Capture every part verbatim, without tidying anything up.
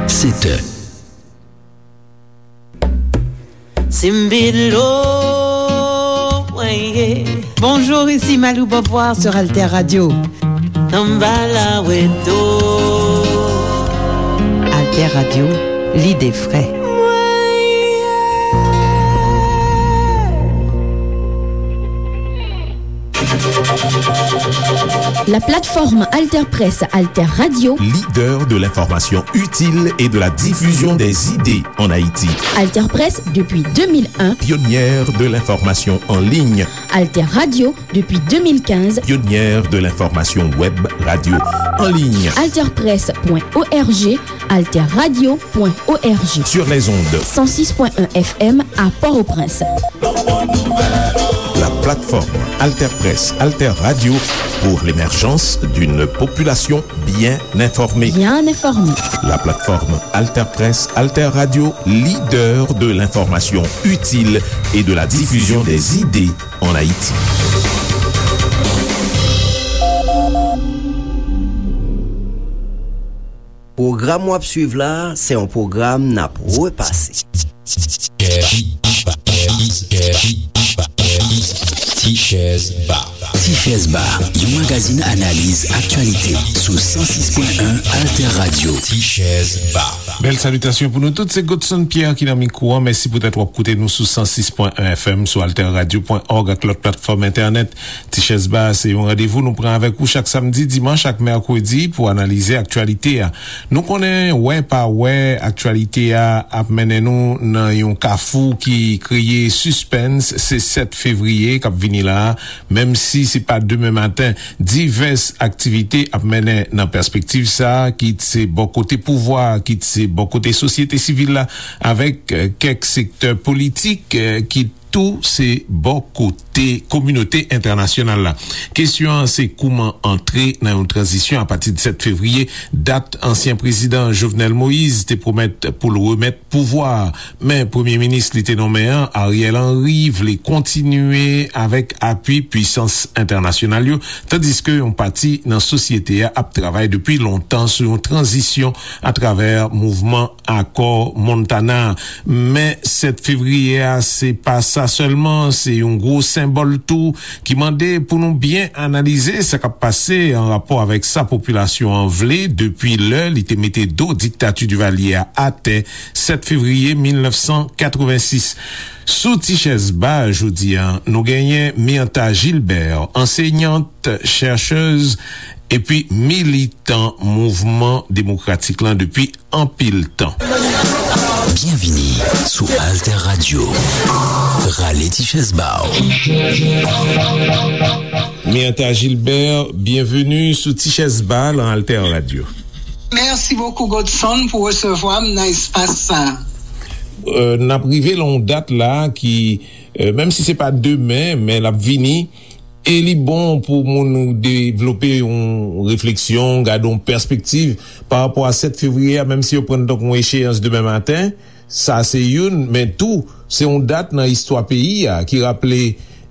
Sèt è. Simbilo, weye. Bonjour, ici Malou Beauvoir sur Alter Radio. Tambala weto. Alter Radio, l'idée vraie. La plateforme Alter Presse, Alter Radio. Leader de l'information utile et de la diffusion des idées en Haïti. Alter Presse depuis deux mille un. Pionnière de l'information en ligne. Alter Radio depuis deux mille quinze. Pionnière de l'information web radio en ligne. Alter Presse point O R G, Alter Radio point O R G. Sur les ondes. Cent six point un F M à Port-au-Prince. La plateforme Alter Presse, Alter Radio pour l'émergence d'une population bien informée. Bien informée. La plateforme Alter Presse, Alter Radio, leader de l'information utile et de la diffusion des idées en Haïti. Pwogram w ap swiv la, se yon pwogram n ap repase. Tichèz Ba. Tichèz Ba, yon magazin analiz aktyalite sou san sis pwen en Alter Radio. Tichèz Ba. Bèl salitasyon pou nou tout, se Godson Pierre ki nan mikwo an. Mèsi poutèt w ap koute nou sou san sis pwen en F M, sou alter radio pwen org ak lòt platfòm entènèt. Tichèz Ba se yon randevou nou pran avèk ou chak samdi, dimanch ak mèkredi pou analize aktyalite a. Nou konnen, wè pa wè, aktyalite a ap mennen nou nan yon kafou ki kreye sispens. Se sèt fevriye k ap vini la a. Menm si se pa demen maten, divès aktivite ap mennen nan pèspektiv sa a, kit se bò kote pouvwa a, kit se bò kote sosyete sivil la, avèk, eh, kèk sektè politik, eh, ki tou se bò kote kominote entènasyonal la. Kesyon an se kouman antre nan yon tranzisyon apati de sèt fevriye, dat ansyen prezidan Jovenel Moïse te pwomèt pou l remèt pouvwa a. Men premye minis li te nonmen an, Ariel Henry, vle kontinye avèk apui pwisans entènasyonal yo, tandiske yon pati nan sosyete a ap travay depi lontan sou yon tranzisyon atravè mouvman Akò Montana. Men sèt fevriye a, se pa sa sèlman, se yon gwo senbòl tou ki mande pou nou byen analize sa k ap pase an rapò avèk sa popilasyon an vle depi lè li te mete do diktati Divalye a atè sèt fevriye mil nèf san katrevensis. Sou Tichèz Ba jodi a, nou genyen Myrtha Gilbert, ansenyant, chèchèz, epi militan mouvman demokratik lan depi anpil tan. Byenvini sou Alter Radio. Rale ti chèz ba w. Myrtha Gilbert, byenveni sou Ti Chèz Ba nan Alter Radio. Mèsi bokou, Godson, pou resevwa m nan espas sa a. Euh, n ap rive nan yon dat la ki, euh, menm si se pa demen, men l ap vini. E li bon pou moun devlope yon refleksyon, gade yon pèspektiv pa rapò a sèt fevriye a, menm si yo pran l tankou yon echeyans demen maten. Sa se youn, men tou, se yon dat nan istwa peyi a ki raple,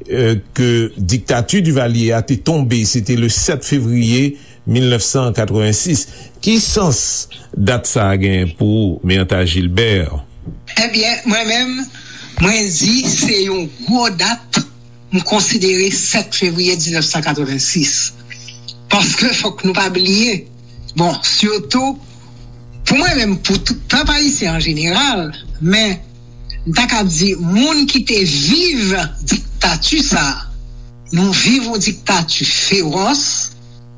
euh, ke diktati Divalye a te tonbe, se te le sèt fevriye mil nèf san katrevensis. Ki sans dat sa a gen pou ou, Myrtha Gilbert? Ebyen, mwen menm, mwen di se yon gwo dat, m konsidere sèt fevriye diznèf san katrevensis. Paske fòk nou pa bliye, bon, sitou, pou mwen menm, pou tout pèp ayisyen an jeneral, men m ta ka di, moun ki te viv diktati sa a, nou viv yon diktati fewòs,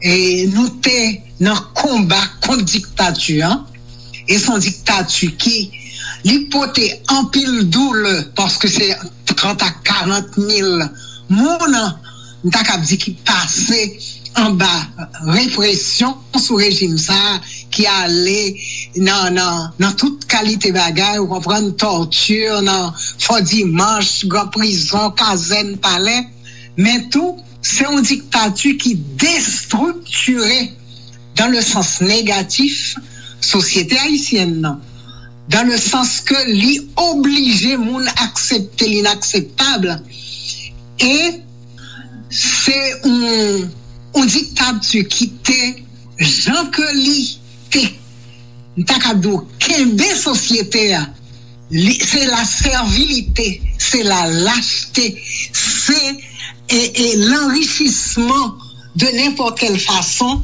e nou te nan konba kont diktati an, e se yon diktati ki, li pote anpil doulè, paske se trant a karant mil moun, m ta kab di, ki pase anba represyon sou rejim sa a, ki ale nan, nan, nan tout kalite bagay, ou konprann, tòti, nan Fò Dimanch, gran prizon, kazèn, palè, men tou, se yon diktati ki destriktire, dans le sens négatif, sosyete ayisyèn nan, dans le sens ke li oblije moun aksepte linakseptab, e se yon, yon diktati ki te, jan ke li te m ta ka di w, kenbe sosyete a, li, se la sèvilite, se la lachte, se e, e lanrichisman de nenpòt kèl fason,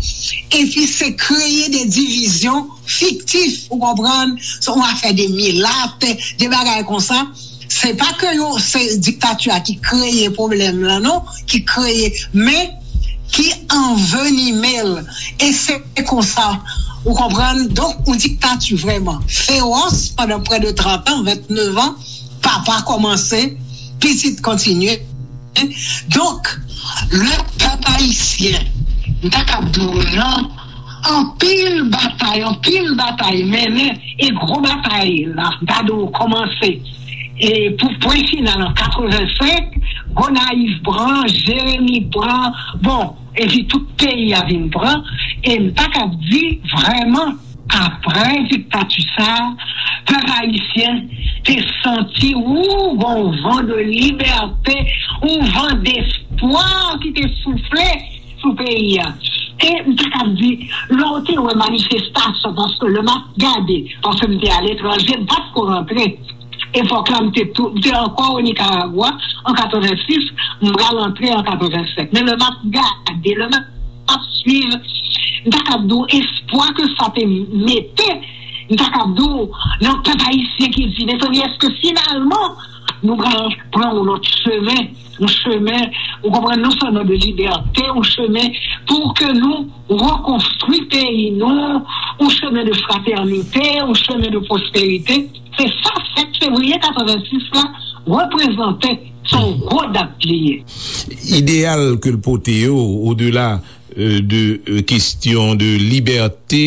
epi se kreye de divizyon fiktif, ou konprann, se yon afè de milat, de bagay konsa. Se pa ke yo, se diktati a ki kreye pwoblèm lan, non, ki kreye, men ki anvenime l. E se konsa, ou konprann, donk, yon diktati vrèman fewòs pandan prè de trant an, venntenev an, papa kòmanse, pitit kontinye. Donk, le pèp ayisyen, m ta kab di w nan anpil batay, anpil batay mennen, e gwo batay la, m ta di w kòmanse, e pou pwen final an katrevensenk, Gonayiv pran, Jeremi pran, bon, epi tout peyi a vin pran, e m ta kab di vrèman, apre diktati sa a, pèp ayisyen te santi, ou, yon van de libète, yon van despwa ki te soufle sou peyi a. E m te kab di, lè w te wè manifestasyon, paske lè m ap gade, paske m te aletranje, m pa t ko rantre. Epòk la, m te tou, m te ankò o Nikaragwa an katrevensis, m pral antre an katrevensenk. Men lè m ap gade, lè m ap swiv, m ta kab di w espwa ke sa te mete, m ta kab di w nan pèp ayisyen ki di, mezanmi, èske finalman nou pral pran yon lòt chemen, yon chemen, ou konprann, non sèlman de libète, yon chemen pou ke nou rekonstwi peyi nou, yon chemen de fratènite, yon chemen de pwosperite. Se sa sèt fevriye katrevensis la reprezante, se yon gwo dat li ye. Ideyal ke l pote yo, odela, euh, de, euh, kesyon de libète,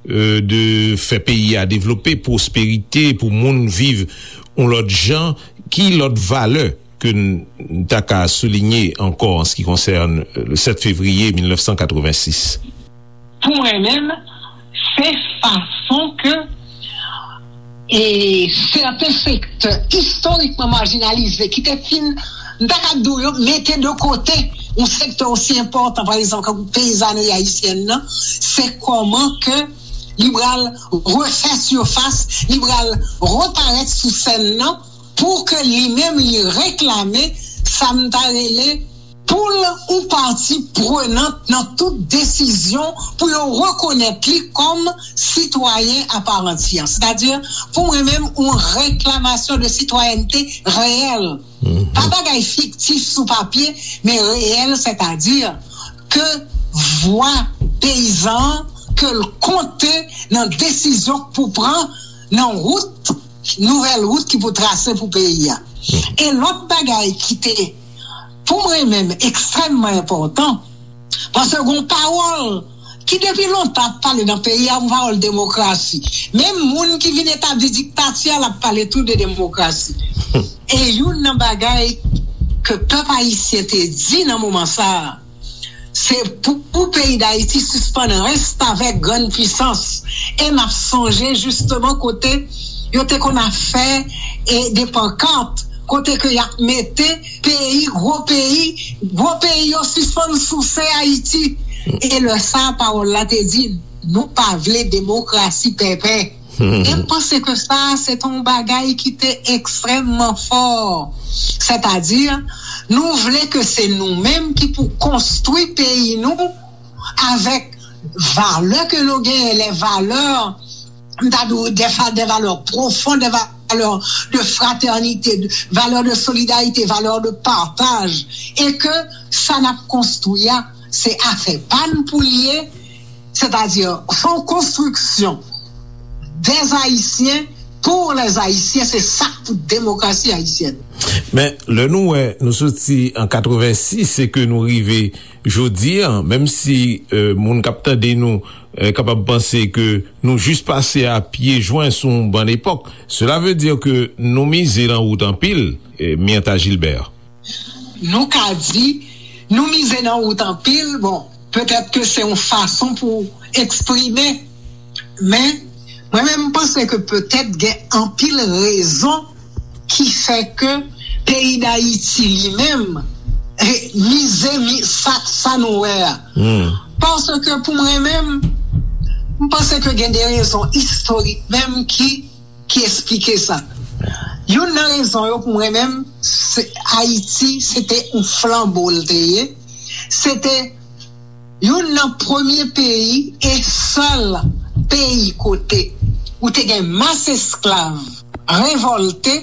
euh, de fè peyi a devlope, pwosperite, pou moun viv yon lòt jan, ki lòt valè ke n, n ta ka soulinye ankò an se ki konsène, euh, le sèt fevriye mil nèf san katrevensis? Pou mwen menm, se fason ke e sèten sektè istorikman majinalize ki te fin, m ta ka di w, yo mete de kote yon sektè osi enpòtan, pa egzanp, tankou peyizanri ayisyèn nan, se kòman ke li pral refè sifas, li pral reparèt sou sèn nan, pou ke li menm li reklame sa m ta rele pou l yon pati prenant nan tout desizyon, pou yo rekonèt li kòm sitwayen a pa antiyè. Sètadi, pou mwen menm, yon reklamasyon de sitwayènte reyèl. Pa bagay fiktif sou papye, men reyèl, sètadi ke vwa peyizan an, ke l konte nan desizyon k pou pran, nan wout, nouvèl wout ki pou trase pou peyi a. E lòt bagay ki te, pou mwen menm, ekstrèmman enpòtan, paske gon pawòl ki depi lontan ap pale nan peyi a, yon pawòl demokrasi. Menm moun ki vin etabli diktati a, l ap pale tou de demokrasi. E youn nan bagay ke pèp ayisyen te di nan moman sa a, se pou, pou peyi Dayiti sispann restavèk grann pisans. E m ap sonje jisteman kote yo te konn ap fè, e, de pankat, kote ke y ap mete peyi, gwo peyi, gwo peyi yo sispann souse Ayiti. E lè sa a, pawòl la te di, nou pa vle demokrasi pèpè. E m panse ke sa a, se te yon bagay ki te ekstrèmman fò. Sètadi, nou vle ke se nou menm ki pou konstwi peyi nou avèk valè ke nou genyen, lè valè, m ta di w, de fa-, de valè pwofon, de valè de fratènite, de valè de solidarite, valè de pataj, e ke sa n ap konstwi a, se afè pa n pou l ye, sètadi, se yon konstriksyon dè Ayisyen, pou lè Ayisyen, se sa k pou demokrasi ayisyèn. Men, lè nou wè, nou soti an katrevensis e ke nou rive jodi a, menm si, euh, moun k ap tande nou, euh, kapab panse ke nou jis pase a pye jwen sou yon bann epòk, cela veut dire que nou mize nan wout anpil, euh, Myrtha Gilbert. Nou ka di, nou mize nan wout anpil, bon, petèt ke se yon fason pou eksprime, men mwen menm, m panse ke petèt gen anpil rezon ki fè ke peyi Dayiti li menm, eh, mize, mi-, sa, sa nou wè a. Paske pou mwen menm, M panse ke gen de rezon istorik menm ki, ki esplike sa. Youn nan rezon yo pou mwen menm, se Ayiti, se te yon flanbo l te ye. Se te youn nan premye peyi e sèl peyi kote ou te gen mas esklav revòlte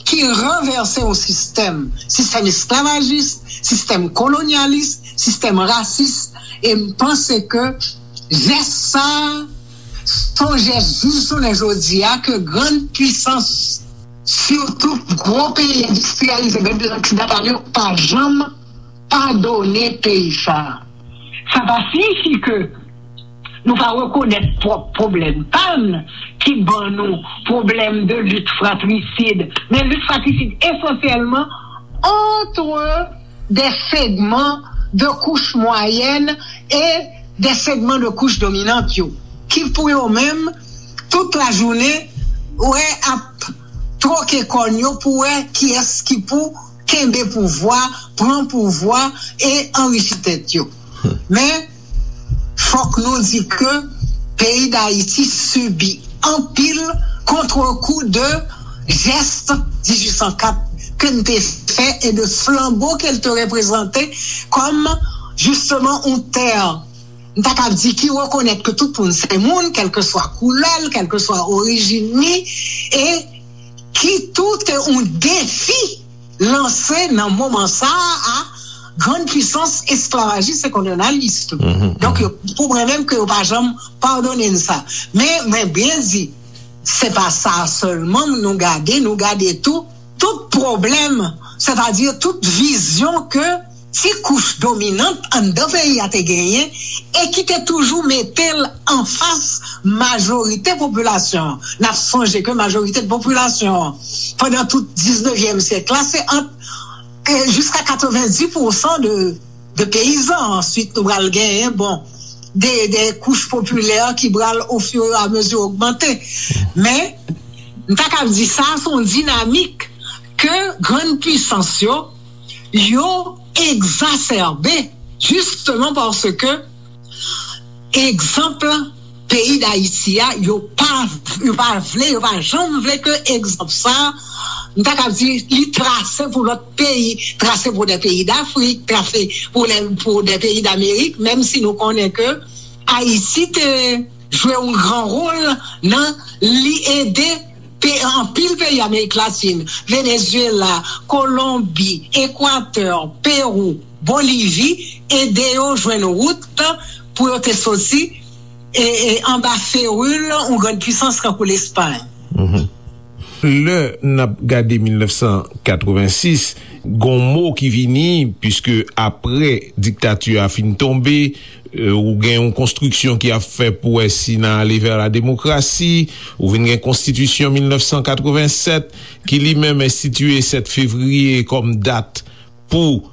ki ranvèse yon sistèm, sistèm esklavajis, sistèm kolonyalis, sistèm rasis, e m panse ke jès sa a, se yon jès jis jounen jodi a ke grann pwisans, sitou gwo peyi endistriyalize, grann pwisans oksidantal yo, pa janm padone peyi sa a. Sa pa siyifi ke nou pa rekonèt pwòp pwoblèm pa n ki ban nou pwoblèm de lit fratrisid, men lit fratrisid esansyèlman antre de segman de kouch mwayèn e de segman de kouch dominant yo, ki pou yo menm, tout lajounen, wè ap twoke kòn yo pou wè kiyès ki pou kenbe pouvwa, pran pouvwa e anrichi tèt yo. Men, fòk nou di ke peyi Dayiti sibi anpil kontrekou de jès dizuit san kat ke n te fè e de flanbo ke l te reprezante kòm, jisteman, yon tè, m ta kab di, ki rekonèt ke tout moun se moun, kèlkeswa koulè l, kèlkeswa orijin li, e ki tou te yon defi lanse nan moman sa a a grann pwisans esklavajis e kolonyalis tou. Donk, yo, pou mwen menm, ke yo pa janm padone n sa. Men, mwen byen di, se pa sa sèlman nou gade, nou gade tou, tout pwoblèm, sètadi tout vizyon ke ti kouch dominant anndan peyi a te genyen e ki te toujou mete l anfas majorite popilasyon an. N ap sonje ke majorite popilasyon an, pandan tout diznevyèm syèk la, se ant, e, jiska katrevenndis pousan de, de peyizan. Answit, nou pral genyen, bon, de, de kouch popilè ki pral ofiramezi ogmante. Men, m ta kab di sa, se yon dinamik ke grann pwisans yo, yo egzasèbe, jisteman paske egzanp peyi Dayiti a, yo pa, yo pa vle, yo pa janm vle ke egzanp sa, m ta kab di, li trase pou lòt peyi, trase pou de peyi Dafrik, trase pou de, pou de peyi Damerik, menm si nou konnen ke Ayiti te jwe yon gran wòl nan li ede pe-, anpil peyi Amerik Latin, Venezuela, Kolonbi, Ekwatè, Pewou, Bolivi, ede yo jwenn wout pou yo te soti, e, e, anba feril yon grann pwisans tankou Lespay. Lè n ap gade mil nèf san katrevensis, gon mo ki vini, piske apre diktati a fin tonbe, e, ou gen yon konstriksyon ki ap fè pou wè si n a ale vè la demokrasi, ou vin gen konstitisyon mil nèf san katrevensèt, ki li menm enstitiye sèt fevriye kòm dat pou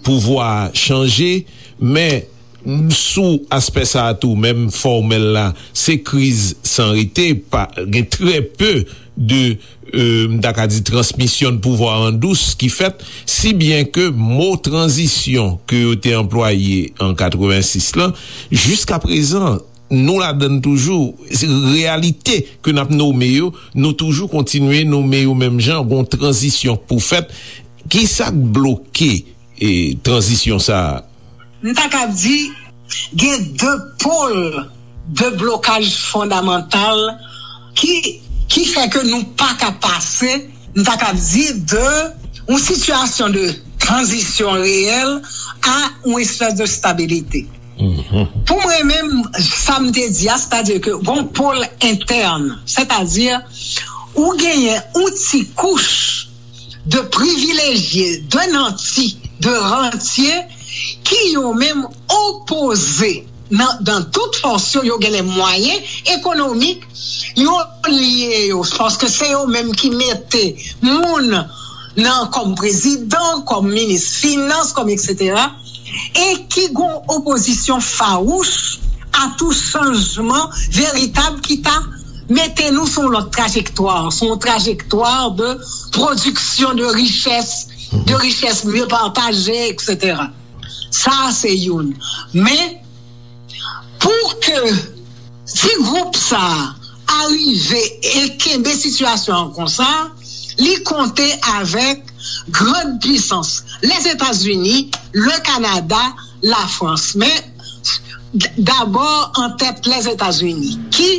pouvwa a chanje, men sou aspè sa a tou, menm fòmèl la, se kriz san rete, pa, gen trè pe de, e, m ta ka di, transmisyon de pouvwa an dous ki fèt, si byen ke mo tranzisyon ke yo te anplwaye an katrevensis lan, jiska prezan, nou ladann toujou, se reyalite ke n ap nome yo, nou toujou kontinye nome yo menm jan, gon tranzisyon pou fèt. Kisa k bloke, e, tranzisyon sa a? M ta ka di, gen de pòl de blokaj fondamantal ki, ki fè ke nou pa ka pase, m ta ka di, de yon sitiyasyon de tranzisyon reyèl a yon espès de stabilite. Pou mwen menm, sa m te di a, sètadi ke gon pòl entèn, sètadi ou genyen yon ti kouch de privilejye, de nanti, de rantye, ki yo menm opoze nan, nan tout fòs yo, yo gen lè mwayen ekonomik, yo lye yo, paske se yo menm ki mete moun nan kòm prezidan, kòm minis finans, kòm etsetera, e ki gon opozisyon fawouch a tou chanjman veritab ki ta mete nou sou yon lòt trajektwa, sou yon trajektwa de pwodiksyon de richès, de richès mye pataje, etsetera. Sa a se youn. Men, pou ke Si gwoup sa a rive e kenbe sitiyasyon an konsa, li konte avèk grann pisans, Lèzetazini, le Kanada, Lafrans. Men, d- dabò an tèt Lèzetazini, ki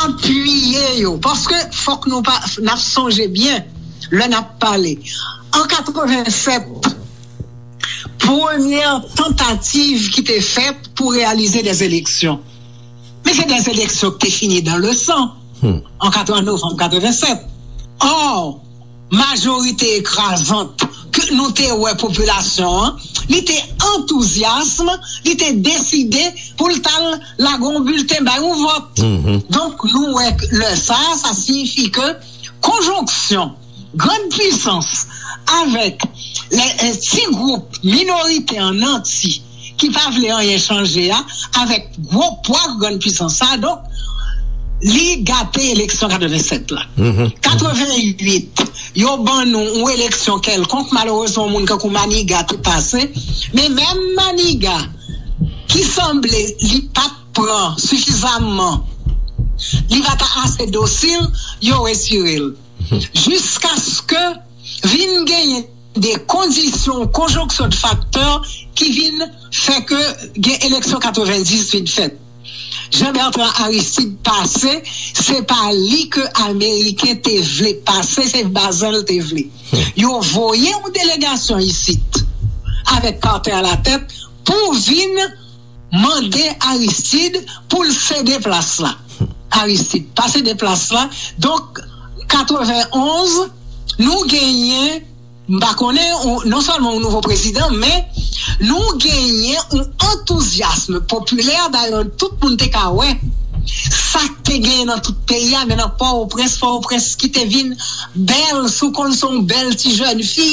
apiye yo, paske fòk nou pa, n ap sonje byen lè n ap pale. An katrevennsèt, premyè tantativ ki te fèt pou reyalize dè eleksyon. Men se dè eleksyon ki te fini dan le san an katreven, novanm katrevennsèt. Ò, majorite ekrazant ke nou te wè popilasyon an, li te antouzyasm, li te deside pou l t al lage yon bilten bay yon vòt. Donk, nou wè lè sa a, sa siyifi ke konjonksyon grann pisans avèk lè, eh, ti gwoup minorite an nanti ki pa vle anyen chanje a, avèk gwo pwa grann pisans sa, donk, li gate eleksyon katrevennsèt la. Katrevenuit, yo ban nou yon eleksyon kèlkonk, malerezman, yon moun kankou Maniga te pase, men menm Maniga, ki sanble li pa t pran sifizamman, li pa t ase dosil, yo retire l. Jiskaske vin genyen de kondisyon, konjonksyon de faktè ki vin fè ke gen eleksyon katrevendis vin fèt. Jean Bertrand Aristide pase, se pa li ke Ameriken te vle pase, se Bazen l te vle. Yo voye yon delegasyon isit, avèk Carter alatèt, pou vin mande Aristide pou l sede plas la. Aristide pa sede plas la. Donk, katrevenonz, nou genyen, m pa konnen, ou- non sèlman yon nouvo prezidan, men nou genyen yon antouzyasm popilè, dayè tout moun te ka wè sa k te genyen nan tout peyi a, men nan Pòtoprens, Pòtoprens ki te vin bèl, si w konn se yon bèl ti jèn fi,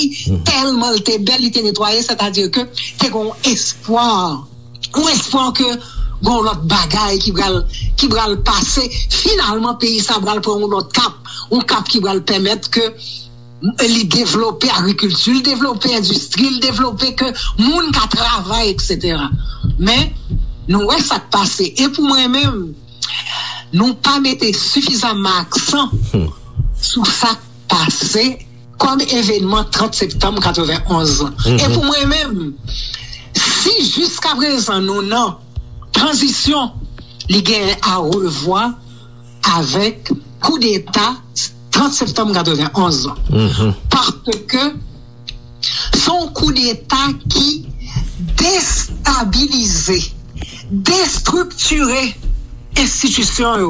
tèlman l te bèl, li te netwaye, sètadi ke te gen yon espwa, yon espwa ke gen yon lòt bagay ki pral, ki pral pase. Finalman, peyi sa pral pran yon lòt kap, yon kap ki pral pèmèt ke li devlope agrikilti, li devlope endistri, li devlope ke moun ka travay, etsetera. Men, nou wè sa k pase. E pou mwen menm, nou pa mete sifizamman aksan sou sa k pase kòm evenman trant septanm katrevenonz lan. E pou mwen menm, si jiskaprezan nou nan tranzisyon, li genyen a revwa avèk koudeta trant septanm katrevenonz lan. Paske se yon koudeta ki destabilize, destriktire enstitisyon yo,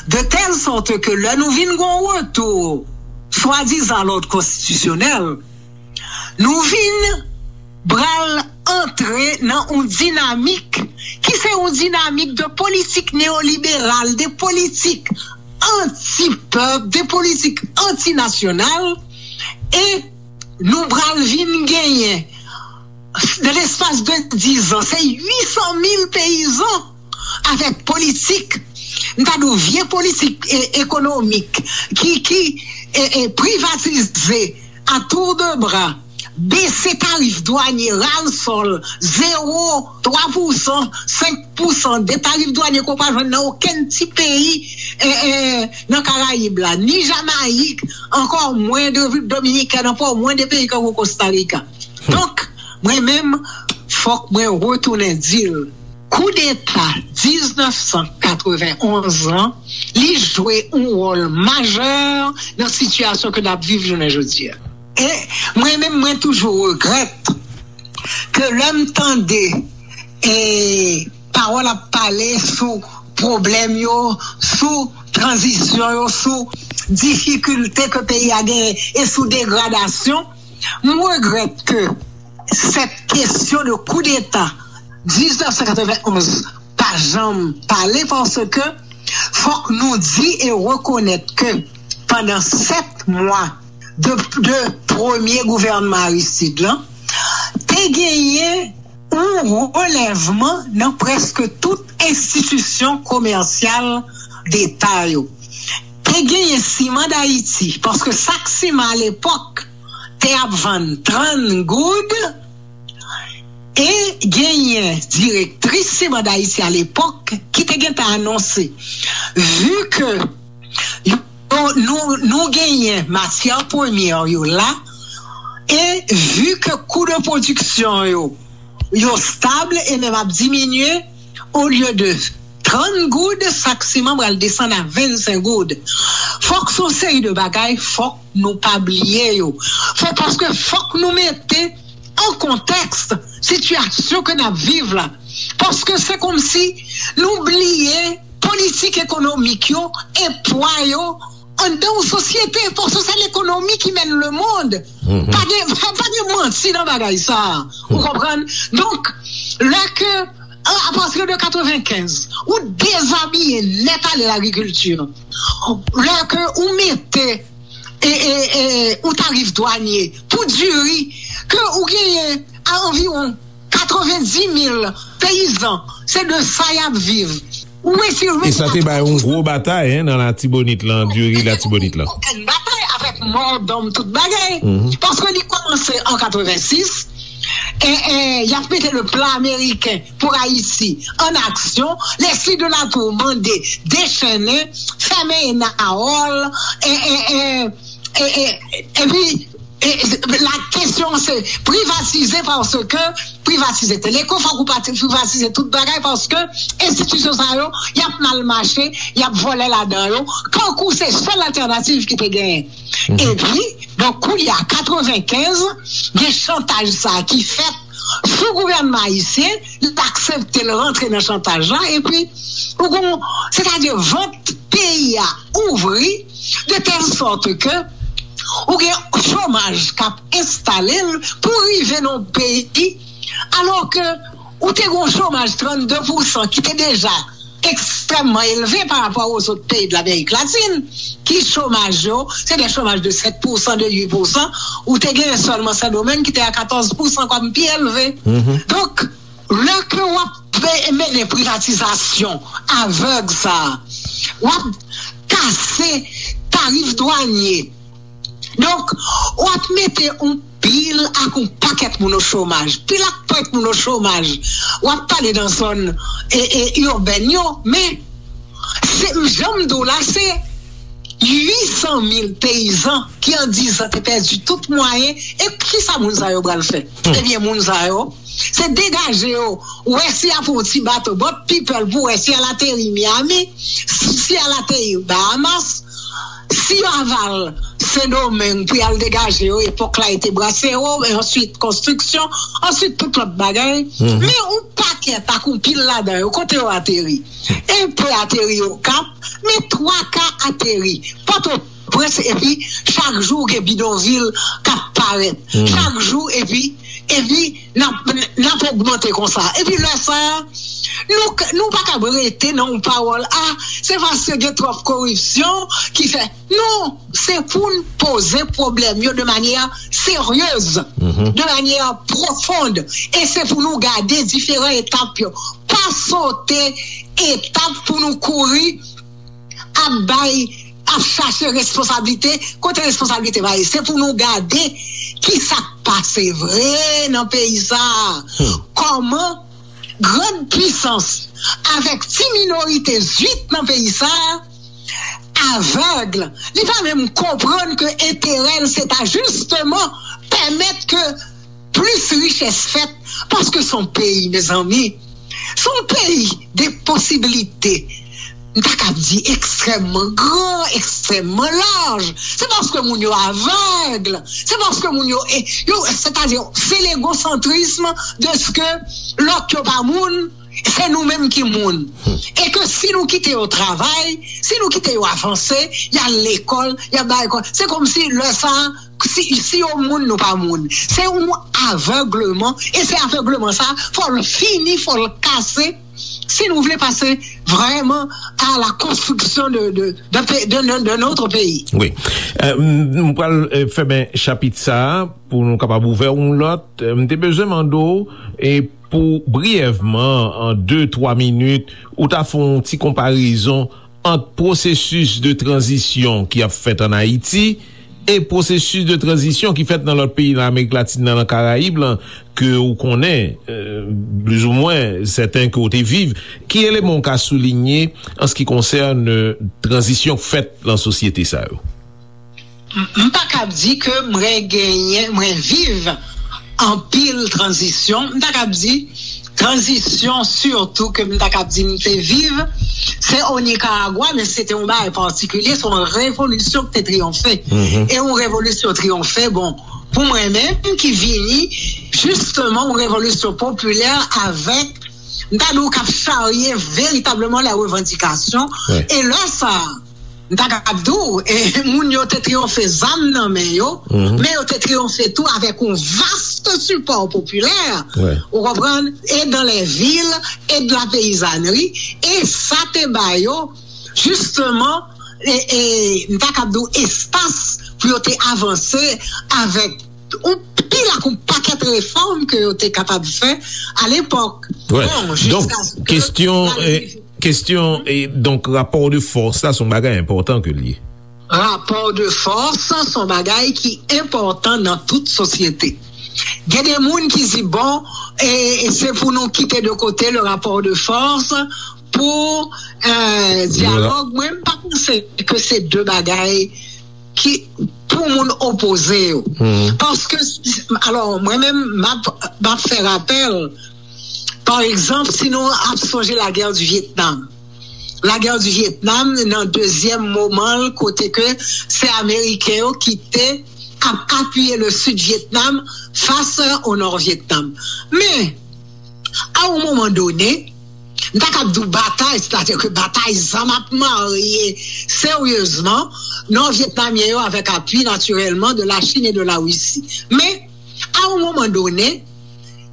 de tèl sòt ke lè nou vin gen yon retou swadizan lòd konstitisyonèl, nou vin pral antre nan yon dinamik ki se yon dinamik de politik neyoliberal, de politik anti-pèp, de politik antinasyonal, e nou pral vin genyen, nan lespas de diz an, se uit san mil peyizan avèk politik, m ta di w, vye politik e, ekonomik ki, ki e, e, privatize a tour de bras, bese tarif dwanye, ral sòl, zewo, twa pousan, senk pousan de tarif dwanye ke w pa jwenn nan okenn ti peyi e, e, nan Karayib la, ni Jamayik, ankò mwen de Repiblik Dominikèn, ankò mwen de peyi tankou Kostarika. Donk, mwen menm, fòk mwen retounen di l, koudeta diznèf san katrevenonz lan, li jwe yon wòl majè nan sitiyasyon ke n ap viv jounen jodi a. E mwen menm, mwen toujou regrèt ke lè m tande e pawòl ap pale sou pwoblèm yo, sou tranzisyon yo, sou difikilte ke peyi a genyen e sou degradasyon, m regrèt ke sèt kesyon de koudeta diznèf san katrevenonz pa janm pale, paske fòk nou di e rekonèt ke pandan sèt mwa de, de premye gouvènman Aristide lan, te genyen yon relèvman nan prèske tout enstitisyon komèsyal deta yo. Te genyen Siman Dayiti, paske sak siman alepòk te ap vann trant goud, E genyen direktris Simand Ayiti alepòk ki te gentan anonse, vi ke yo, nou, nou genyen matyè premyè yo la, e vi ke kou de pwodiksyon yo, yo stab e menm ap diminye, olye de trant goud, sak siman pral desann a vennsenk goud. Fòk se yon seri de bagay, fòk nou pa bliye yo. Fò, paske fòk nou mete an kontèks sitiyasyon ke n ap viv la. Paske se kòmsi nou bliye politik ekonomik yo e pwa yo anndan yon sosyete, paske se lekonomi ki mèn lemonn. Pa gen, pa gen manti nan bagay sa a. Ou konprann? Donk, lè ke, a, apati de katrevenkenz, ou dezabiye nèt ale lagrikilti. Lè ke ou mete e, e, e, yon tarif dwanye pou diri ke ou genyen a anviwon katrevendis mil peyizan, se de sa y ap viv. Ou retire. E sa te bay yon gwo batay, en, nan Latibonit lan, diri Latibonit lan. Okenn batay avèk mòdòm tout bagay. Paske li kòmanse an katrevensis, e, e, y ap mete le plan américain pour Haïti en action. Leslie de la Tour mande dechennen, fèmen Enawòl, e, e, e, e, e, epi, e, la kesyon se privatize, paske privatize Teleko, fòk ou pati-, privatize tout bagay, paske enstitisyon sa yo, y ap mal mache, y ap vòlè ladan yo, kankou se sèl altènativ ki te genyen. Epi, donk, koulye a, katrevenkenz, gen chantaj sa ki fèt sou gouvènman ayisyen, l aksepte l rantre nan chantaj la, epi, ou gon, sètadi vant peyi a ouvri, de tèl sòt ke ou gen chomaj k ap enstale l pou rive nan yon peyi, alò ke ou te gen yon chomaj trannde pousan ki te deja ekstrèmman elve pa rapò a zòt peyi de Lamerik Latin, ki chomaj yo, se de chomaj de sèt pousan, de uit pousan, ou te gen sèlman Sendomeng ki te a katòz pousan kòm pi elve. Donk, lè ke w ap pe-, mennen privatizasyon avèg sa a, w ap kase tarif dwanye. Donk, w ap mete yon pil ak yon pakèt moun o chomaj, pil ak pwent moun o chomaj. W ap pale nan zòn, e, e, ibèn yo, men se, jan m di w la, se uit san mil peyizan ki an diz an te pèdi tout mwayen. E kisa moun sa yo pral fè? Ebyen, moun sa yo, se degaje yo, wè si y ap yon ti bato, boat people, pou wè si y al ateri Miami, si y al ateri Bahamas, si y aval Sendomeng pou y al degaje yo, epòk la e te Braceros, e answit konstriksyon, answit tout lòt bagay. Men yon pakèt ak yon pil ladan yo, kote yo ateri? Enpe ateri Okap, men twa ka ateri Pòtoprens, epi chak jou gen bidonvil k ap parèt. Chak jou, epi, epi n ap, n ap ogmante konsa. Epi lè sa a, nou, nou pa kab rete nan yon pawòl, a, se paske gen twòp koripsyon ki fè. Non, se pou n poze pwoblèm yo de manyè seryez, de manyè pwofond, e se pou nou gade diferan etap yo. Pa sote etap pou nou kouri ap bay, ap chache responsablite, kote responsablite pa ye. Se pou nou gade ki sa k pase vre nan peyi sa a. Kòman grann pisans avèk ti minorite zwit nan peyi sa a avèg. Li pa menm konprann ke enterè l se ta jisteman pèmèt ke plis richès fèt, paske se yon peyi, mezanmi, se yon peyi de posiblite. M ta kab di ekstrèmman gran, ekstrèmman laj. Se paske moun yo avèg. Se paske moun yo, e, yo, sètadi, se legosantrism de ce que lòt yo pa moun, se nou menm ki moun. E ke si nou kite yo travay, si nou kite yo avanse, y al lekòl, y al bay lekòl, se kòmsi lè sa a, si, si yo moun, nou pa moun. Se yon avègleman, e se avègleman sa, fò l fini, fò l kase, si nou vle pase vrèman à la construction de, de, de, de, de, de notre pays. Wi. Euh, m, m pral, euh, fèmen chapit sa a pou nou kapab ouvè yon lòt. Euh, m te bezwen mande w, e pou briyèvman, an de, twa minit, ou ta fè yon ti konparezon ant pwosesis de tranzisyon ki ap fèt ann Ayiti e pwosesis de tranzisyon ki fèt nan lòt peyi nan Amerik Latin nan, nan Karayib lan, ke ou konnen, euh, plizoumwen sèten ke ou te viv, ki eleman ou ka soulinye an se ki konsène tranzisyon k fèt nan sosyete sa yo? M pa kab di ke mwen genyen, mwen viv anpil tranzisyon. M ta kab di tranzisyon sitou ke m ta kab di m te viv, se o Nikaragwa, men se te yon bagay patikilye, se yon revolisyon ki te triyonfe. E yon revolisyon triyonfe, bon, pou mwen menm ki vini jisteman yon revolisyon popilè avèk, m ta di w, k ap charye veritableman la revandikasyon. E lè sa a, m ta kab di w, e, moun yo te triyonfe zam nan men yo, men yo te triyonfe tou avèk yon vast sipò popilè, ou konprann, e dans les villes, e de la paysannerie, e sa te ba yo, jisteman, e, e, m ta kab di w, espas pou yo te avanse avèk yon pil ak yon pakèt refòm ke yo te kapab fè alepòk. Bon, donk, kestyon, e, kestyon, e, donk, rapò de fòs la, se yon bagay enpòtan ke l ye. Rapò de fòs, se yon bagay ki enpòtan nan tout sosyete. Gen de moun ki di, bon, e, e se pou nou kite de kote le rapò de fòs pou, e, dyalòg. Mwen, m pa panse ke se de bagay ki pou moun opoze yo. Paske, alò, mwen menm, m ap, m ap fè rapèl, pa egzanp, si nou ap sonje lagè di Vyetnam. Lagè di Vyetnam, nan dezyèm moman l, kote ke se Ameriken yo ki te ap apiye le Sid Vyetnam fas o Nò Vyetnam. Men, a yon moman done, m ta kab di w batay, sètadi ke batay zam ap marye seryezman Nò Vyetnamyen yo avèk apui natirèlman de la Chine et de la Russie. Men, a yon moman done,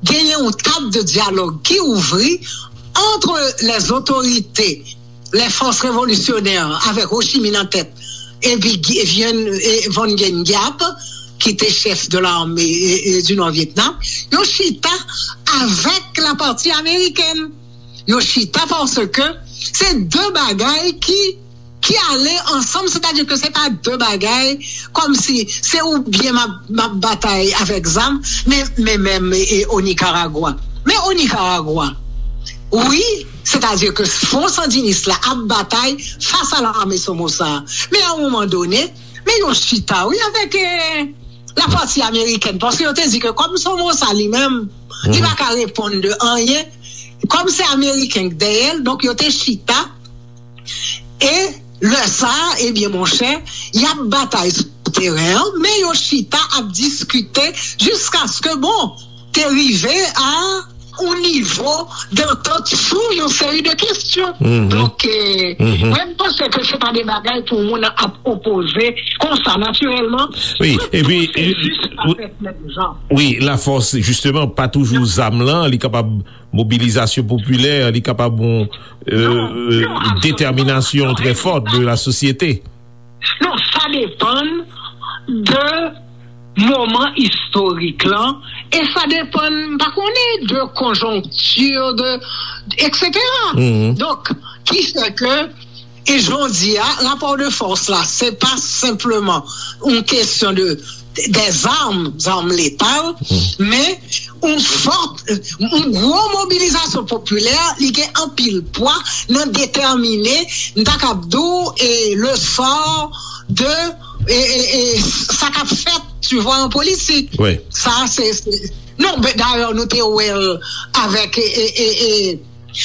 genyen yon tab de dyalòg ki ouvri entre les autorités, les forces révolutionnaires, avèk Ho Chi Minh nan tèt, epi Gi-, Vien, e, Van Nguyen Giap, ki te chèf de l'armée, e, e, du Nord Vietnam, yo chita avèk la pati amerikèn. Yo chita paske se de bagay ki, ki ale ansanm, sètadi ke se pa de bagay kòmsi se oubyen m ap, m ap batay avèk zam, men, men menm, e, o Nikaragwa. Men o Nikaragwa, wi, sètadi ke Front Sandiniste la ap batay fas a lame Somoza. Men a yon moman done, men yo chita, wi, avèk, e, la pati amerikèn, paske yo te di ke kòm Somoza li menm, li pa ka reponn de anyen, kòm se ameriken k dèyè l, donk yo te chita, e lè sa a, ebyen, monchè, y ap batay sou teren an, men yo chita ap diskite jiskaske, bon, te rive a yon nivo dantant sou yon seri de kesyon. Donk, e, mwen, m panse ke se pa de bagay pou moun ap opoze konsa, natirèlman. Wi, epi, se jis pa fèt menm jan. Wi, lafòs, jisteman, pa toujou zam lan, li kapab mobilizasyon popilè, li kapab yon, e, detèminasyon trè fòt de la sosyete. Non, sa depann de moman istorik lan, e sa depann, m pa konnen, de konjonkti, de, etsetera. Donk, ki fè ke, e jodi a, rapò de fòs la, se pa senpleman yon kesyon de, de zam, zam letal, men yon fòt, yon gwo mobilizasyon popilè, li gen anpil pwa nan detèmine, m ta kab di w, e, le sort de, e, e, e, sa k ap fèt, tu vois, an politik. Sa, se, se, non, men dayè, nou te wè l avèk, e, e, e, e,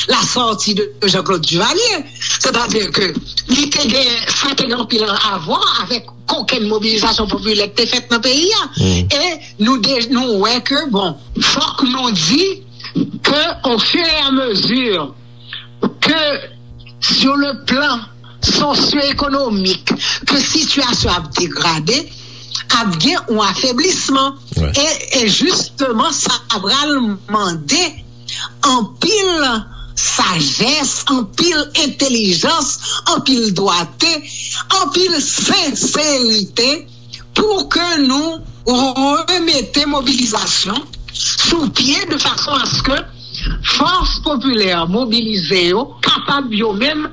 la sortie de Jean-Claude Duvalier. Sètadi ke li te gen, sa te gen anpil a vwa avèk kokenn mobilizasyon popilè ki te fèt nan peyi a. E nou de-, nou wè ke, bon, fòk nou di ke, au fur et à mesure ke, sur le plan sosyo-ekonomik, ke sitiyasyon ap degrade, ap gen yon afeblisman. E, e jisteman, sa pral mande anpil sajès, anpil entèlijans, anpil dwate, anpil senserite pou ke nou remete mobilizasyon sou pye de fason aske fòs popilè mobilize yo kapab yo menm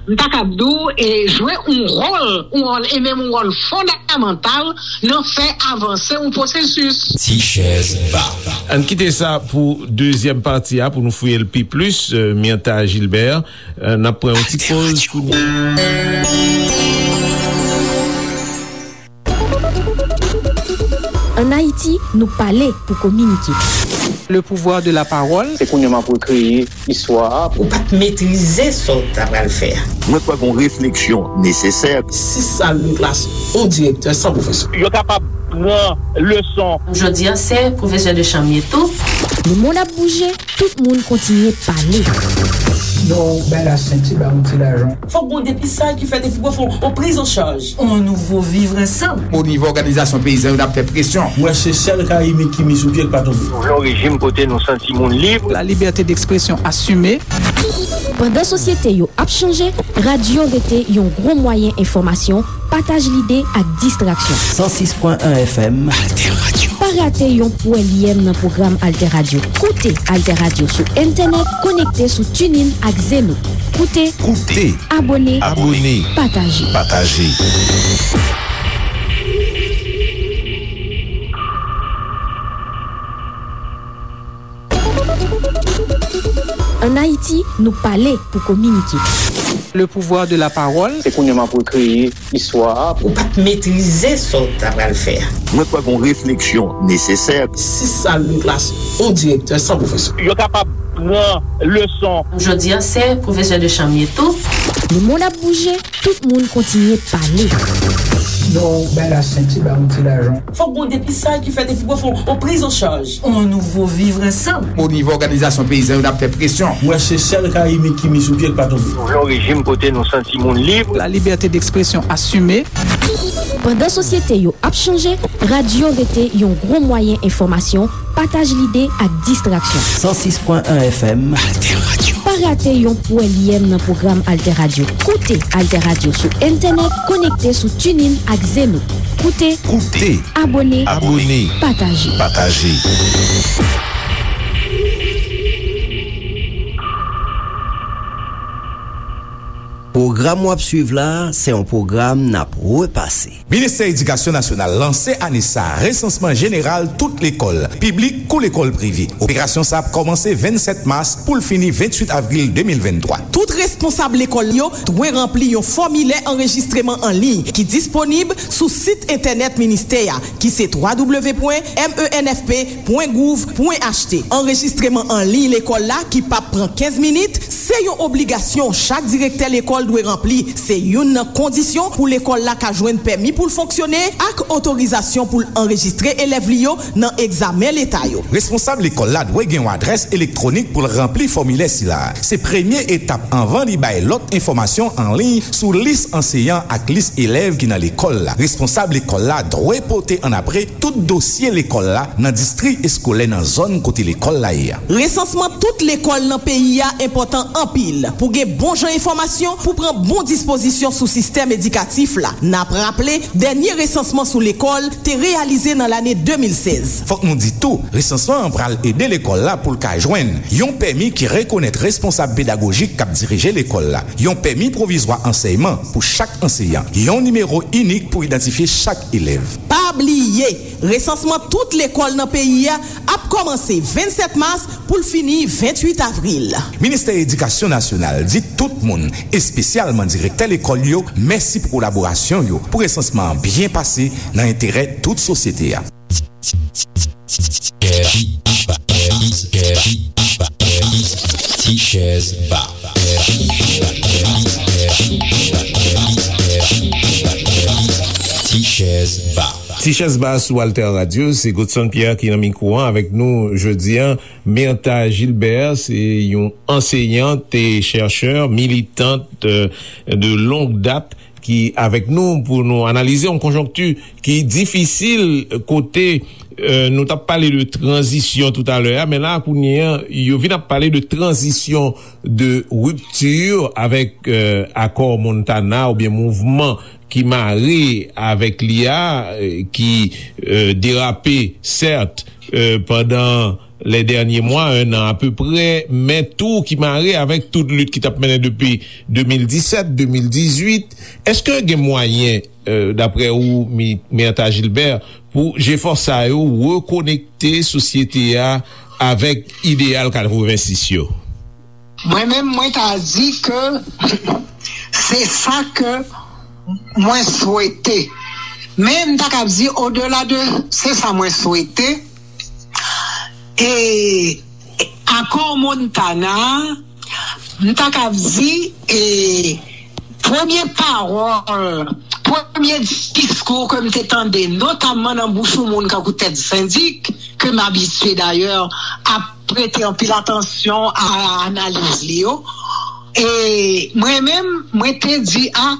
M ta kab di w, e, jwe yon wòl, yon wòl, e menm yon wòl fondamantal nan fè avanse yon pwosesis. Ti chèz ba. Ann kite sa pou dezyèm pati a, pou nou fouye l pi plis, eh, Myrtha Gilbert. Eh, n ap pran yon ti poz kounye a. Ann Ayiti, nou pale pou kominike. Le pouvoir de la parole. Se kounye a m ap rekreye istwa a. Ou pa t metrize sa w ta pral fè a. Mwen kwè gen yon refleksyon nesesè. Sis sal de klas, yon direktè san pwofesè. Yo kapab pran leson. Jodi a, se pwofesè de chanm ye tou. Le mond ap bouje, tout moun kontinye pale. Non, bay la senti, ba yon ti lajan. Fòk gon depistaj ki fèt epi pou fè yon priz an chaj. On nouvo vivre ensemble. O nivo òganizasyon peyizan yo, n ap fè presyon. Mwen se sèl ka imit ki mi sou pye k pa tonbe. Nou vle yon rejim kote nou santi moun lib. La liberté d'expression assumée. Pandan sosyete yo ap chanje, radyo rete yon gwo mwayen enfòmasyon, pataj lide ak distraksyon. San sis pwen en F M. Alter Radio. Pa rate yon pwèlyèm nan pwogram Alter Radio. Koute Alter Radio sou entènèt, konekte sou TuneIn ak Zeno. Koute, Koute. Abòne, Abòne. Pataje. Pataje. Ann Ayiti, nou pale pou kominike. Le pouvoir de la parole. Se kounye a m ap rekreye istwa a. Ou pa t metrize sa w ta pral fè a. Mwen kwè gen yon refleksyon nesesè. Sis sal de klas, yon direktè san pwofesè. Yo kapab pran leson. Jodi a, se pwofesè de chanm ye tou. Le mond ap bouje, tout moun kontinye pale. Non, bay la senti, ba yon ti lajan. Fòk gon depistaj ki fèt epi pou fè yon priz an chaj. On nouvo vivre ensemble. O nivo òganizasyon peyizan yo, n ap fè presyon. Mwen se sèl ka imit ki mi sou pye k pa tonbe. Nou vle yon rejim kote nou santi moun lib. La liberté d'expression assumée. Pandan sosyete yo ap chanje, radyo rete yon gwo mwayen enfòmasyon, pataj lide ak distraksyon. San sis pwen en F M. Alter Radio. Pa rate yon pwèlyèm nan pwogram Alter Radio. Koute Alter Radio sou entènèt, konekte sou TuneIn ak Zeno. Koute, Koute. Abòne, Abòne. Pataje. Pataje. Pwogram w ap swiv la, se yon pwogram n ap repase. Ministè Edikasyon Nasyonal lanse ane sa a resansman jeneral tout lekòl, piblik kou lekòl prive. Operasyon sa a ap kòmanse vennsèt mas pou l fini venntwit avril de mil venntwa. Tout responsab lekòl yo dwe ranpli yon fòmilè anrejistreman an liy ki disponib sou sit entènèt ministè a, ki se twa w w w pwen m e n f p pwen gouv pwen h t. Anrejistreman an liy lekòl la, ki p ap pran kenz minit, se yon obligasyon chak direktè lekòl dwe ranpli. Se youn nan kondisyon pou lekòl la ka jwenn pèmi pou l fonksyone ak otorizasyon pou l anrejistre elèv li yo nan egzamen leta yo. Responsab lekòl la dwe gen yon adrès elektwonik pou l ranpli fòmilè sila a. Se premye etap anvan li bay lòt enfòmasyon an liy sou lis anseyan ak lis elèv ki nan lekòl la. Responsab lekòl la dwe pote annapre tout dosye lekòl la nan distri eskolè nan zòn kote lekòl la ye a. Resansman tout lekòl nan peyi a enpòtan anpil pou gen bon jan enfòmasyon pou pran bon dispozisyon sou sistèm edikatif la. N ap raple, dènye resansman sou lekòl te reyalize nan lane de mil sèz. Fòk nou di tou, resansman an pral ede lekòl la pou l ka jwenn yon pèmi ki rekonèt responsab pedagojik k ap dirije lekòl la, yon pèmi pwovizwa ansèyman pou chak anseyan, yon nimewo inik pou idantifye chak elèv. Pa bliye, resansman tout lekòl nan peyi a ap kòmanse vennsèt mas pou l fini venntwit avril. Ministè Edikasyon Nasyonal di tout moun, espesyalman direktè lekòl yo, mèsi pou kolaborasyon yo pou resansman an byen pase nan enterè tout sosyete a. Ti chèz ba. Ti chèz ba. Ti chèz ba sou Alter Radio, se Godson Pierre ki nan mikwo an avèk nou jodi a. Myrtha Gilbert, se yon anseyant e chèchè, militant, euh, de longue date, ki avèk nou pou nou analize yon konjonkti ki difisil kote, euh, nou t ap pale de tranzisyon toutalè a, men la, kounye a, yo vin ap pale de tranzisyon, de ripti avèk, euh, akò Montana oubyen mouvman ki mare avèk li a, euh, ki, euh, derape, sèt, euh, pandan lè dènye mwa, en an apeprè, men tou ki mare avèk tout lit ki t ap mennen depi de mil disèt, de mil dizuit. Èske gen mwayen, euh, daprè ou, Mi-, Myrtha Gilbert, pou jefò sa yo rekonekte sosyete a avèk ideyal katrevensis yo? Mwen menm, mwen ta di ke se sa ke mwen swete. Men m ta kab di, odela de se sa mwen swete, e akò Montana, m ta kab di, e premye pawòl, premye diskou ke m te tande, notamman nan bouch yon moun kankou Ted Syndic, ke m abitye dayè ap prete anpil atansyon a analiz li yo. E mwen menm, mwen te di, a,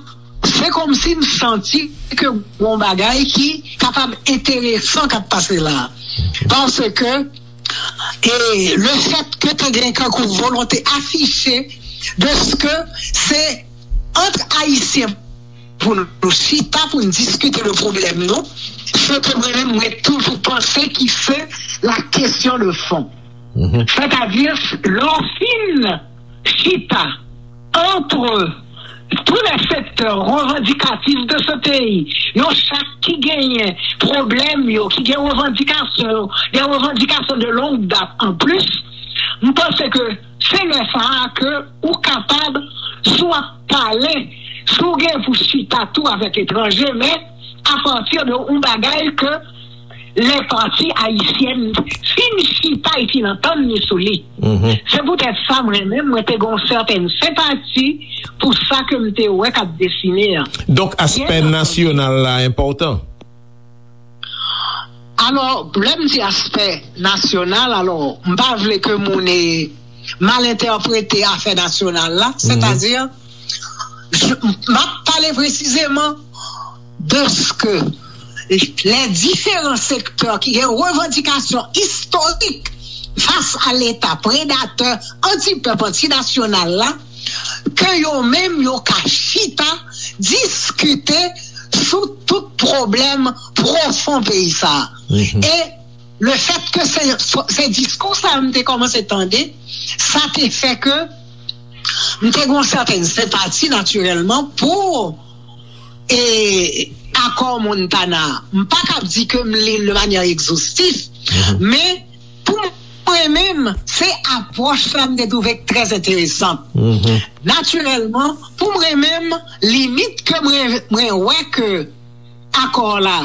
se kòmsi m santi ke gon bagay ki kapab enteresan k ap pase la. Paske, e le fèt ke te gen kankou volonte afiche de ke se ant Ayisyen pou nou chita, pou nou diskite de pwoblèm nou, se ke mwen menm, mwen toujou panse ki se la kesyon de fon. Sètadi, lè w fin chita entre tous les secteurs revendicatifs de ce pays, yo chak ki genyen pwoblèm yo, ki gen revandikasyon yo, des revendications de longue date en plus, m panse ke se lè sa a ke ou kapab, si w ap pale, si w gen pou chita tou avèk etranje, men apati de yon bagay ke lè pati ayisyèn fin chita e fin antann li sou li. Se poutèt sa, mwen menm, mwen te gen yon sètèn senpati pou sa ke m te wè k ap desine an. Donk, aspè nasyonal la enpòtan? Alò, lè m di aspè nasyonal, alò, m pa vle ke moun, e, mal entèprete afè nasyonal la, sètadi, m ap pale presizeman de ke les différents secteurs ki gen revandikasyon istorik fas a Leta predatè, antipèp, antinasyonal la, ke yo menm yo ka chita, diskite sou tout pwoblèm pwofon peyi sa a. E le fèt ke se, se diskou sa a m te kòmanse tande, sa te fè ke m te gen yon sètèn senpati, natirèlman, pou, e, akò Montana. M pa kab di ke m li l de manyè egzostif, men pou mwen menm, se apwòch la m te twouve trè enteresan. Natirèlman, pou mwen menm, limit ke mwen, mwen wè ke akò la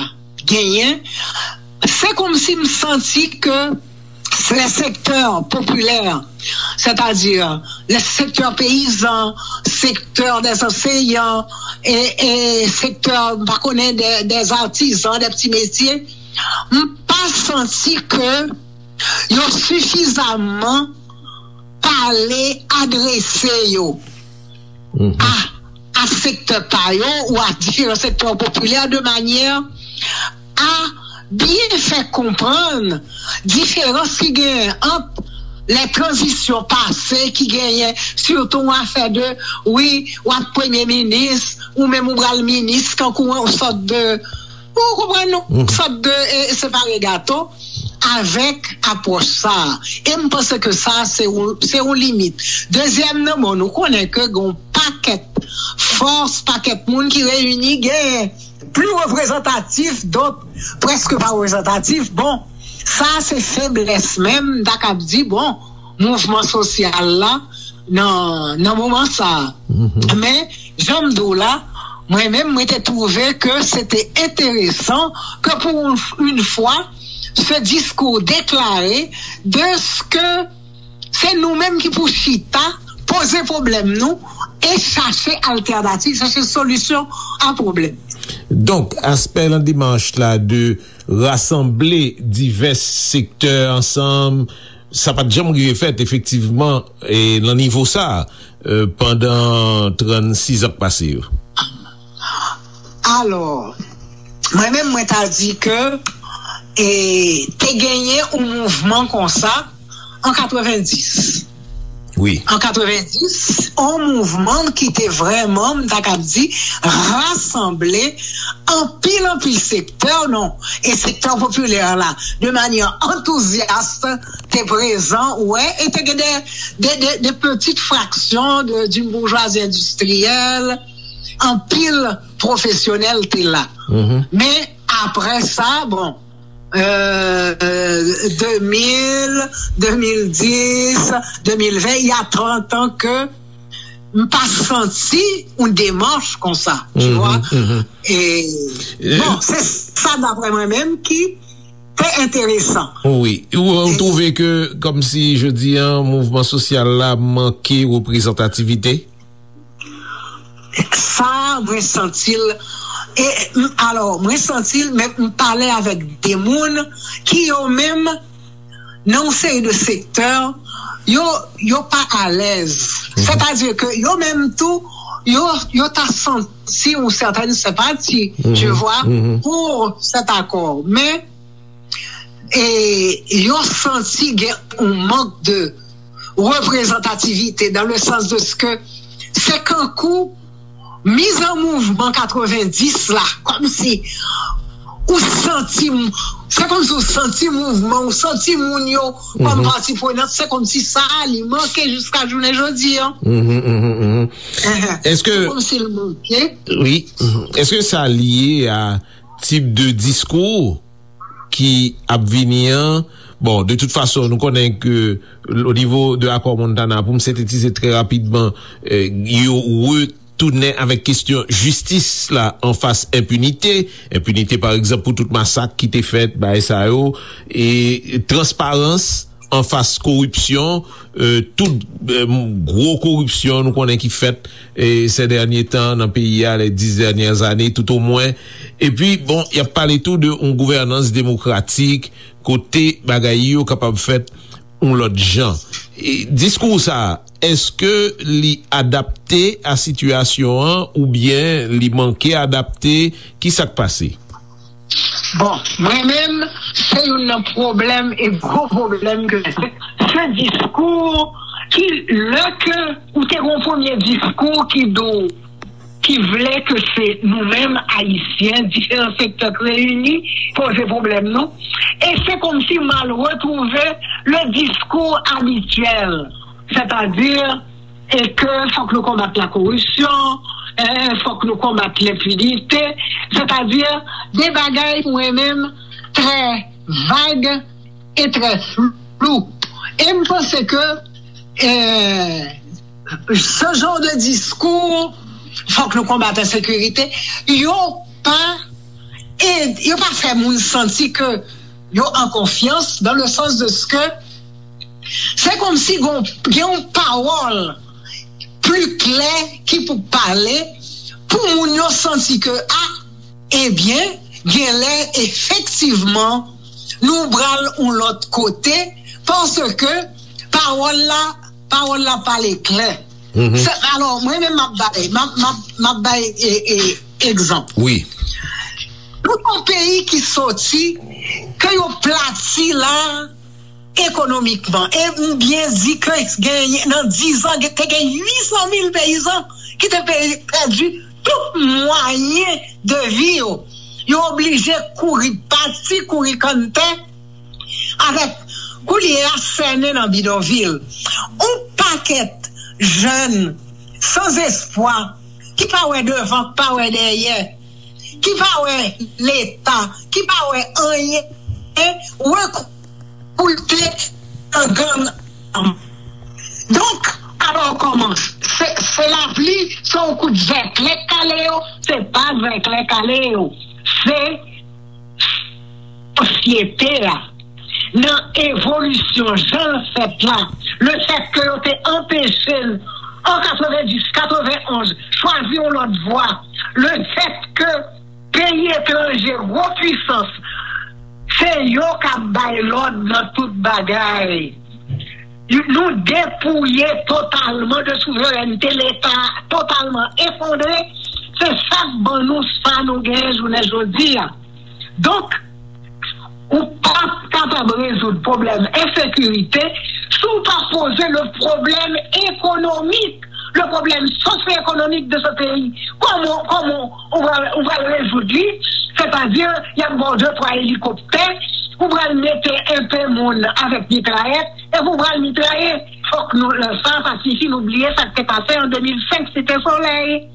genyen, se kòmsi m santi ke les secteurs populaires, c'est-à-dire les secteurs paysans, secteur des enseignants, e, e sektè, m pa konnen, des, des artisans, des petits métiers, m pa santi ke yo sifizaman pale, adrese yo a, a sektè pa yo ou a diferan sektè popilè de manyè a byen fè konprann diferans ki genyen ant lè tranzisyon pase ki genyen, sitou yon afè de, wi, w ap premye minis, ou menm ou pral minis, kankou yon sòt de, ou konprann, yon sòt de, e, separe gato avèk apwòch sa a. E m panse ke sa, se yon, se yon limit. Dezyèm nan, bon, nou konnen ke gen yon pakèt fòs, pakèt moun ki reyini, gen pli reprezantatif, dòt prèske pa reprezantatif. Bon, sa se feblès menm, m ta kab di, bon, mouvman sosyal la nan, nan moman sa a. Men, jan m di w la, mwen menm, mwen te twouve ke se te enteresan ke pou yon, yon fwa, se diskou deklare de ke se nou menm ki pou chita, poze pwoblèm nou e chache altènativ, chache solisyon a pwoblèm. Donk, aspè nan demach la de rasanble divès sektè ansanm, sa pa t janm rive fèt, efektivman, e nan nivo sa a, e, pandan trannsis an k pase yo. Alò, mwen menm, mwen ta di ke, e, te genyen yon mouvman konsa an katrevenndis. Wi. An katrevenndis, yon mouvman ki te vrèman, m ta kab di, rasanble anpil, anpil sektè, non, e sektè popilè la, de manyè antouzyas, te prezan, ou wè, e te gen de, de, de, de pitit fraksyon de, d'une bourgeoisie industrielle, anpil pwofesyonèl te la. Men, apre sa, bon, euh, euh, de mil, de mil dis, de mil ven, il y a trente ans que m pa santi yon demach konsa, tu vois. E, bon, se sa, daprè mwen menm, ki te enteresan. Wi. Ou, ou twouve ke, kòmsi, jodi a, mouvman sosyal la manke reprezantativite? Sa, mwen santi l. E, m, alò, mwen santi l, men m pale avèk de moun ki yo menm, nan yon seri de sektè, yo, yo pa alèz. Sètadi ke yo menm tou, yo, yo ta santi yon sètèn senpati, tu vois, pou sèt akò. Men, e yo santi gen yon mank de reprezantativite, dans le sens de ce que se kankou miz an mouvman katrevenndis la, kòmsi ou santi, se kòmsi ou santi mouvman, ou santi moun yo kòm pati prenant, se kòmsi sa a li manke jiska jounen jodi a. Èske, kòmsi l manke. Wi. Èske sa lye a tip de diskou ki ap vini an? Bon, de tout fason, nou konnen ke o nivo de akò Montana, pou m sentetize trè rapidman, eh, yo retounen avèk kesyon jistis la anfas enpinite. Enpinite, pa egzanp, pou tout masak ki te fèt, bagay sa yo, e transparans anfas koripsyon, eh, tout, eh, gwo koripsyon nou konnen ki fèt, eh, ces derniers temps nan peyi a, les dix dernières années, tout au moins. Epi, bon, y ap pale tou de yon gouvènans demokratik, kote bagay yo kapab fèt yon lòt jan. E diskou sa a, èske li adapte a sitiyasyon an oubyen li manke adapte? Ki sa k pase? Bon, mwen menm, se youn nan pwoblèm e gwo pwoblèm ke se diskou ki, lè ke ou te gon premye diskou ki di w, ki vle ke se nou menm Ayisyen, diferan sektè k reyini, poze pwoblèm nou. E se kòmsi m al retwouve le diskou abityèl, sètadi e ke fòk nou konbat la koripsyon, e fòk nou konbat lenpinite, sètadi de bagay mwen menm trè vag e trè flou. E m panse ke, eh, ce genre de discours, fòk nou konbat ensekirite, yo pa, e yo pa fè moun santi ke yo an konfyans, dans le sens de ce que se kòmsi gon, gen yon pawòl pli klè ki pou pale pou moun yo santi ke, a, ebyen, genlè efektivman nou pral yon lòt kote, paske pawòl la, pawòl la pale klè. Se, alò, mwen menm m ap bay, m ap, m ap, m ap bay, e, e, egzanp. Wi. Nou yon peyi ki soti, ke yo plati la, ekonomikman. E m byen di ke gen, nan diz an, te gen uit san mil peyizan ki te pe-, pèdi tout mwayen de vi yo. Yo oblije kouri pati, kouri kanntè, avèk koulye a sènen nan bidonvil. Yon pakèt jèn san espwa, ki pa wè devan, ki pa wè dèyè, ki pa wè Leta, ki pa wè anyen, rekrite nan gang. Donk, alò kòman? Se, se lapli, se yon kout zèklè k kale yo, se pa zèklè k kale yo. Se sosyete a, nan evolisyon jan l fèt la, le fèt ke yo te anpeche n an katrevenndis, katrevenonz, chwazi yon lòt vwa, le fèt ke peyi etranje, gwo pwisans, se yo k ap bay lòd nan tout bagay. Nou depouye totalman de souverènte, Leta totalman efondre, se sa k ban nou sa nou genyen jounen jodi a. Donk, ou p ap kapab rezoud pwoblèm ensekirite si w pa poze le problème économique, le problème socio-économique de ce pays, kòman, kòman ou va, ou va rezoud li? Sètadi, y ap ba w de twa elikoptè, ou pral mete enpe moun avèk mitrayèt, epi ou pral mitraye. Fòk nou, sa pa sifi nou bliye sa k te pase an de mil senk Site Solèy.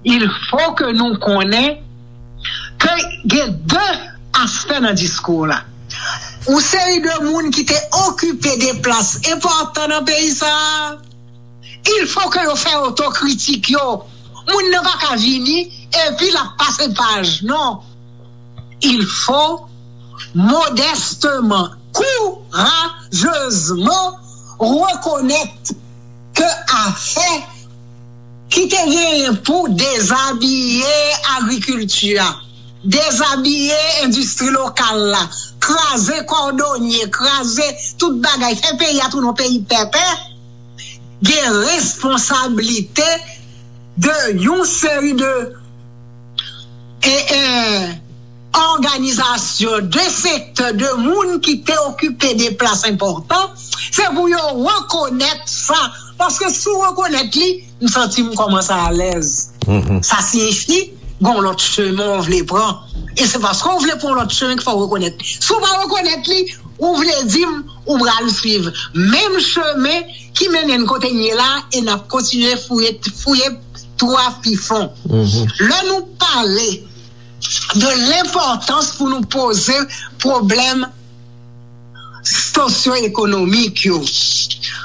Il faut que nou konnen ke gen de aspè nan diskou la. Yon seri de moun ki te okipe de plas enpòtan nan peyi sa a, il faut que yo fè otokritik yo. Moun nan pa ka vini epi l ap pase paj. Non. Il faut modestement, courageusement reconnaître que afè ki te genyen pou dezabiye agrikilti a, dezabiye endistri lokal la, kraze kòdonye, kraze tout bagay, fè peyi a tounen yon peyi pèpè, gen responsablite de yon seri de e, e, òganizasyon, de sektè, de moun ki te okipe de plas enpòtan, se pou yo rekonèt sa. Paske si w rekonèt li, m santi m kòmanse alèz. Sa siyifi gon lòt chemen w vle pran. E se paske w vle pran yon lòt chemen ki fè w rekonèt. Si w pa rekonèt li, ou vle di m ou pral swiv menm chemen ki mennen n kote n ye la, e n ap kontinye fouye, fouye twa pi fon. Lè nou pale de lenpòtans pou nou poze pwoblèm sosyo-ekonomik yo,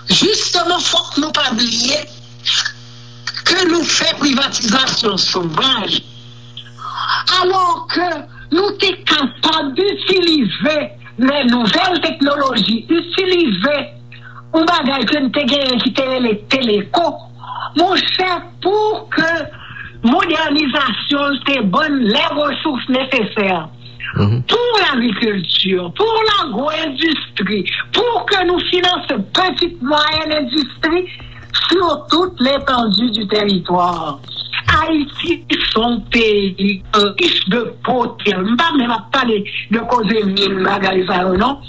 jisteman, fòk nou pa bliye ke nou fè privatizasyon sovaj, alò ke nou te kapab itilize lè nouvèl teknoloji, itilize yon bagay ke n te genyen ki te rele teleko, monchè, pou ke modènizasyon l te ban n lè resous nesesè pou lagrikilti, pou lagwo-endistri, pou ke nou finanse pitit mwayèn endistri sur toute l'étendue du territoire. Ayiti se yon peyi rich de potansyèl. M pa menm ap pale de koze min, bagay sa yo, non.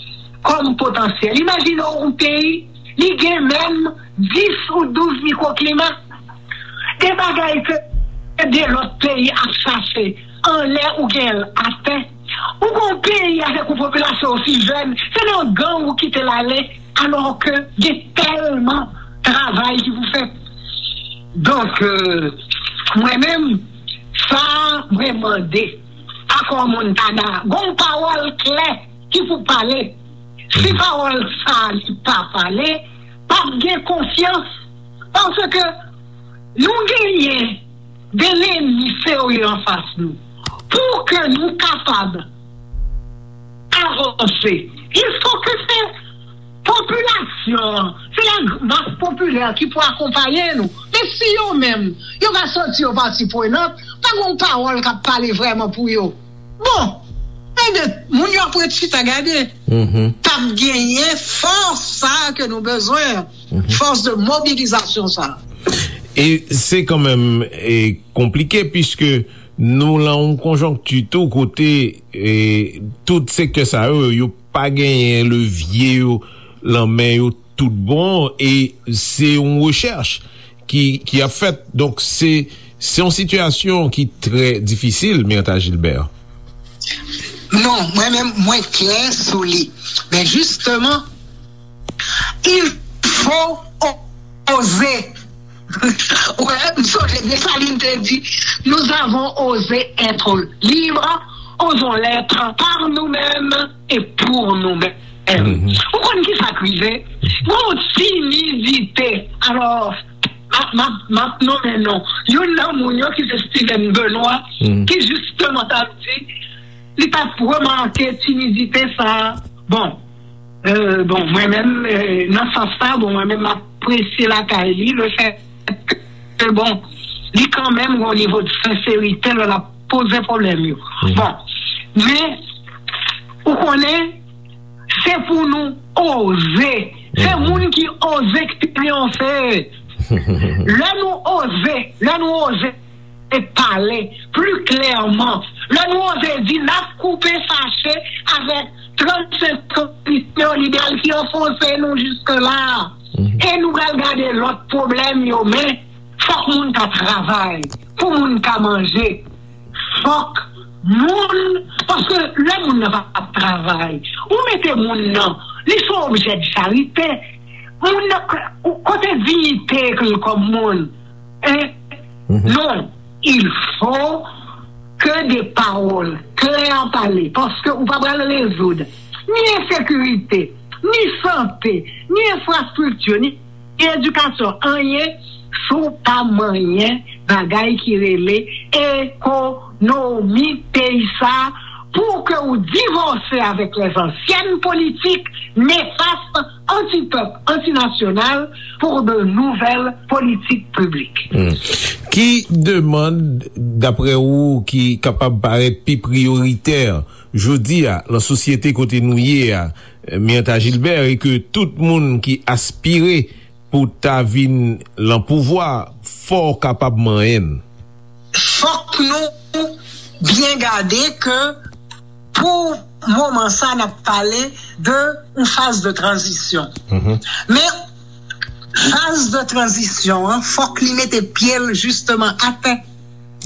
Kòm potansyèl. Imajine w yon peyi, li gen menm dis ou douz mikwoklima. De bagay ke de lòt peyi ap chache anlè ou gen l atè. Ou gon peyi avèk yon popilasyon osi jèn, se nan gang ou kite l ale, alò ke gen tèlman travay ki pou fèt. Donk, euh, mwen menm, sa mwen mande Akò Montana, gon pawòl klè ki pou pale. Si pawòl sa li pa pale, p ap gen konfyans. Paske nou genyen de lènmi serye anfas nou. Pou ke nou kapab avanse, il faut que se popilasyon an, se la mas popilè ki pou akonpaye nou. Men si yo menm, yo pa santi yo pati prenant, pa gon pawòl k ap pale vrèman pou yo. Bon, ebyen, moun yo ap ret chita gade. P ap genyen fòs sa a ke nou bezwen, fòs de mobilizasyon sa a. E se kanmenm e konplike, piske nou lan yon konjonkti tou kote e tout sektè sa yo, yo pa genyen levye yo lan men yo tout bon, e se yon rechèch ki, ki ap fèt. Donk, se, se yon sitiyasyon ki trè difisil, Myrtha Gilbert. Non, mwen menm, mwen klè sou li. Men jisteman, il faut oser. Wè, m sonje Desalin te di, nous avons osé être libres, osons l'être par nous-mêmes et pour nous-mêmes. Ou konn ki sa k rive? Gon timidite. Alò, m ap, m ap, m ap nonmen non youn nan moun yo ki se Steven Benoît, ki jisteman t ap di, li t ap remake timidite sa a. Bon, euh, bon, mwen menm, euh, nan sans sa, bon, mwen menm, m apresye lakay li, le fèt ke, bon, li kanmenm gon nivo de senserite lè l ap poze pwoblèm yo. Bon, men, ou konnen, se pou nou oze. Se moun ki oze ki triyonfe. Lè nou oze, lè nou oze pale pli klèman, lè nou oze di n ap koupe fache avèk trannsenk polisye yo, lidè l ki anfonse nou jiske la. E nou pral gade lòt pwoblèm yo, men fòk moun ka travay, pou moun ka manje. Fòk moun, paske lè moun nan pa ap travay, ou mete moun nan, li se yon objè de charite. Moun nan, kote diyite l kòm moun? Hein? Non, il faut que des paroles claires parlées, paske ou pa pral rezoud ni ensekirite, ni sante, ni enfrastrikti, ni edikasyon, anyen, si w pa manyen bagay ki rele ekonomi peyi sa, pou ke w divòse avèk lèzansyen politik nefas, antipèp, antinasyonal, pou de nouvèl politik piblik. Ki demann, daprè ou, ki kapab parèt pi priyoritè jodi a, nan sosyete kote nou ye a, Mirtha Gilbert, e ke tout moun ki aspire pou ta vin lan pouvwa, fò w kapab manyen l? Fòk nou byen gade ke pou moman sa, n ap pale de yon faz de tranzisyon. Men faz de tranzisyon an, fòk li mete pye l jisteman atè.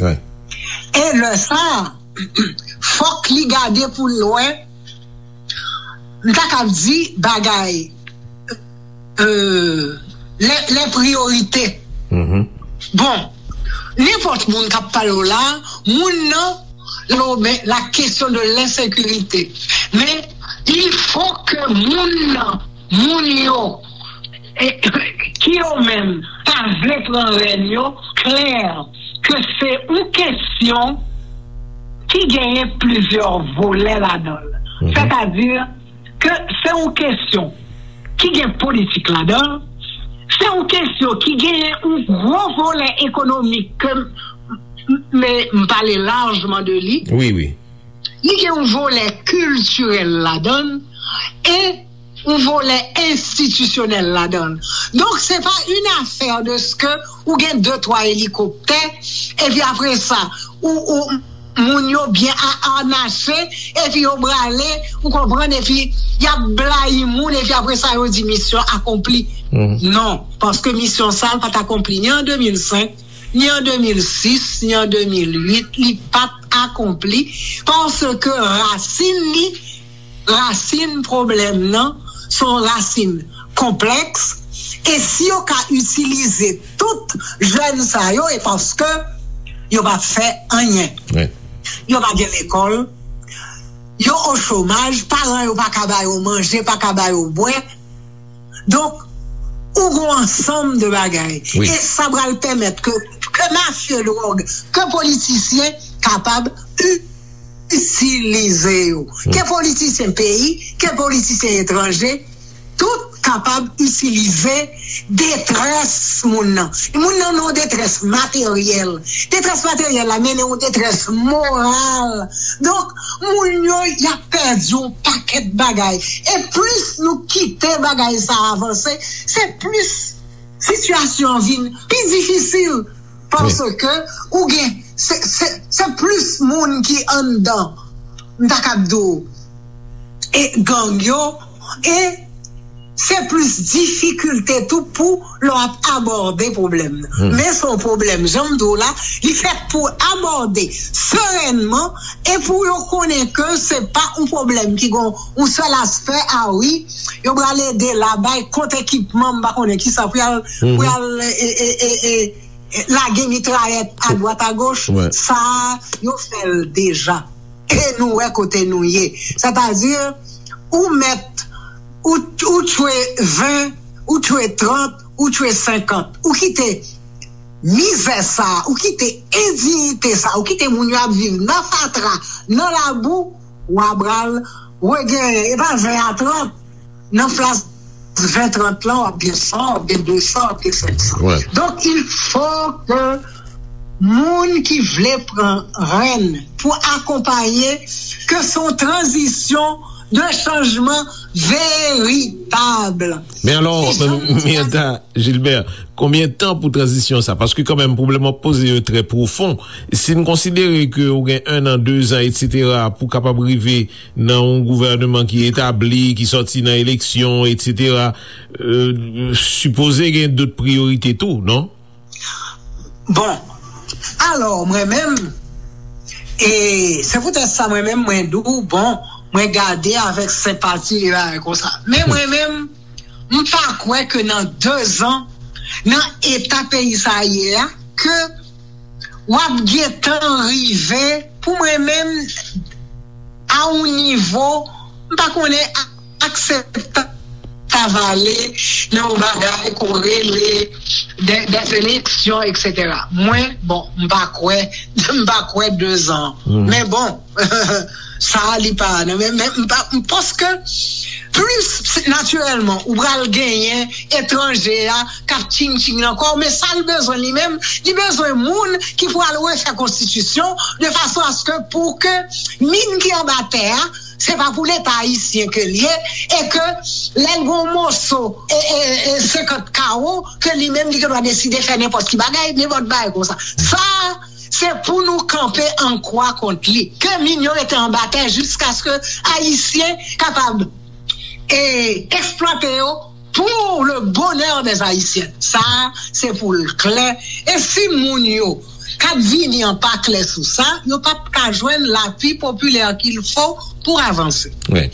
E lè sa, fòk li gade pou l wè, m ta kab di bagay, euh, les, les priorités. Bon, nenpòt moun k ap pale w la, moun nan, lo, men, la question de l'insécurité. Men, il faut que moun nan, moun yo, eh, ki yo menm, ta vle pran rèn yo, klè, ke se yon kesyon ki genyen plizyè volè ladan l. Sètadi ke se yon kesyon ki gen politik ladan l, se yon kesyon ki genyen yon gwo volè ekonomik ke m, m, m pale lajman de li. Wi, wi. Li gen yon volè kiltirèl ladan l e yon volè enstitisyonèl ladan l. Donk, se pa une affaire de ce que ou gen de, twa elikoptè, epi apre sa, ou, ou, moun yo byen a-, anache, epi yo brale, ou konprann, epi y ap blayi moun, epi apre sa, yo di misyon akonpli. Non, paske misyon sa a pa t akonpli ni an de mil senk, ni an de mil sis, ni an de mil uit, li pa t akonpli, paske rasin li, rasin pwoblèm nan, se yon rasin konplèks, e si yo ka itilize tout jèn sa yo, e paske yo p ap fè anyen. Yo pa gen lekòl, yo o chomaj, paran yo pa ka ba yo manje, pa ka ba yo bwè. Donk, ou gon ansanm de bagay. E sa pral pèmèt ke, ke mafye dwòg, ke politisyen kapab itilize yo. Ke politisyen peyi, ke politisyen etranje, tout kapab itilize detrès moun nan. Moun nan nan yon detrès materyèl. Detrès materyèl la mennen yon detrès moral. Donk, moun yo, y ap pèdi yon pakèt bagay. E plis nou kite bagay sa a avanse, se plis sitiyasyon an vin pi difisil. Paske ou gen, se, se, se plis moun ki anndan, m ta kab di w, e gang yo, e se plis difikilte tou pou lè w ap abòde pwoblèm nan. Men se yon pwoblèm, jan m di w la, li fèt pou abòde serènman e pou yo konnen ke se pa yon pwoblèm ki gon yon sèl aspè, a wi, yo pral ede la, bay kont ekipman, m pa konnen kisa, pou y al, pou y al, e, e, e, e, lage mitrayèt adwat agoch, sa a, yo fè l deja. E nou wè kote nou ye. Sètadi, ou mèt, ou, ou tchwe ven, ou tchwe trant, ou tchwe senkant. Ou kite mizè sa a, ou kite endiyite sa a, ou kite moun yo ap viv nan fatra, nan labou, w a pral regenyen. E pa ven a trant, nan plas ven trant lan, w ap gen san, w ap gen de san, w ap gen senk san. Donk, il faut que moun ki vle pran rèn pou akonpaye, ke se yon tranzisyon de chanjman veritab. Men alò, Miyanta Gilbert, konbyen tan pou tranzisyon sa? Paske kanmenm, pwoblèm w ap poze yo trè pwofon. Si n konsidere ke ou gen en an, de zan, etsetera, pou kapab rive nan yon gouvèneman ki etabli, ki sòti nan eleksyon, etsetera, euh, sipoze gen dòt priyorite tou, non? Bon, alò, mwen menm, e se poutèt sa mwen menm, mwen di w, bon, mwen gade avèk senpati e bagay konsa. Men mwen menm, m pa kwè ke nan de zan, nan eta peyi sa ye a, ke w ap gentan rive, pou mwen menm, a yon nivo, m pa konnen, a- akseptab ale nan yon bagay ke w rele de, de eleksyon, etsetera. Mwen, bon, m pa kwè, m pa kwè de zan. Men bon, sa a li pa, non, men, men m pa, m, paske plis natirèlman, ou pral genyen etranje a k ap tching tching nan kò w, men sa l bezwen li menm, li bezwen moun ki pral refè konstitisyon de fason aske pou ke min ki anba tè a, se pa pou Leta ayisyen ke l ye, e ke lè l gen yon moso, e, e, e senkant kawo, ke li menm li gen dwa deside fè nenpòt ki bagay, nenpòt bagay konsa. Sa, se pou nou kanpe an kwa kont li. Ke min yo rete anba tè jiskaske ayisyen kapab, e, eksplwate yo pour le bonheur des Haïtiens. Sa, se pou l klè. E si moun yo k ap vini an pa klè sou sa, yo p ap ka jwenn lapui popilè qu'il faut pour avanse. Wi.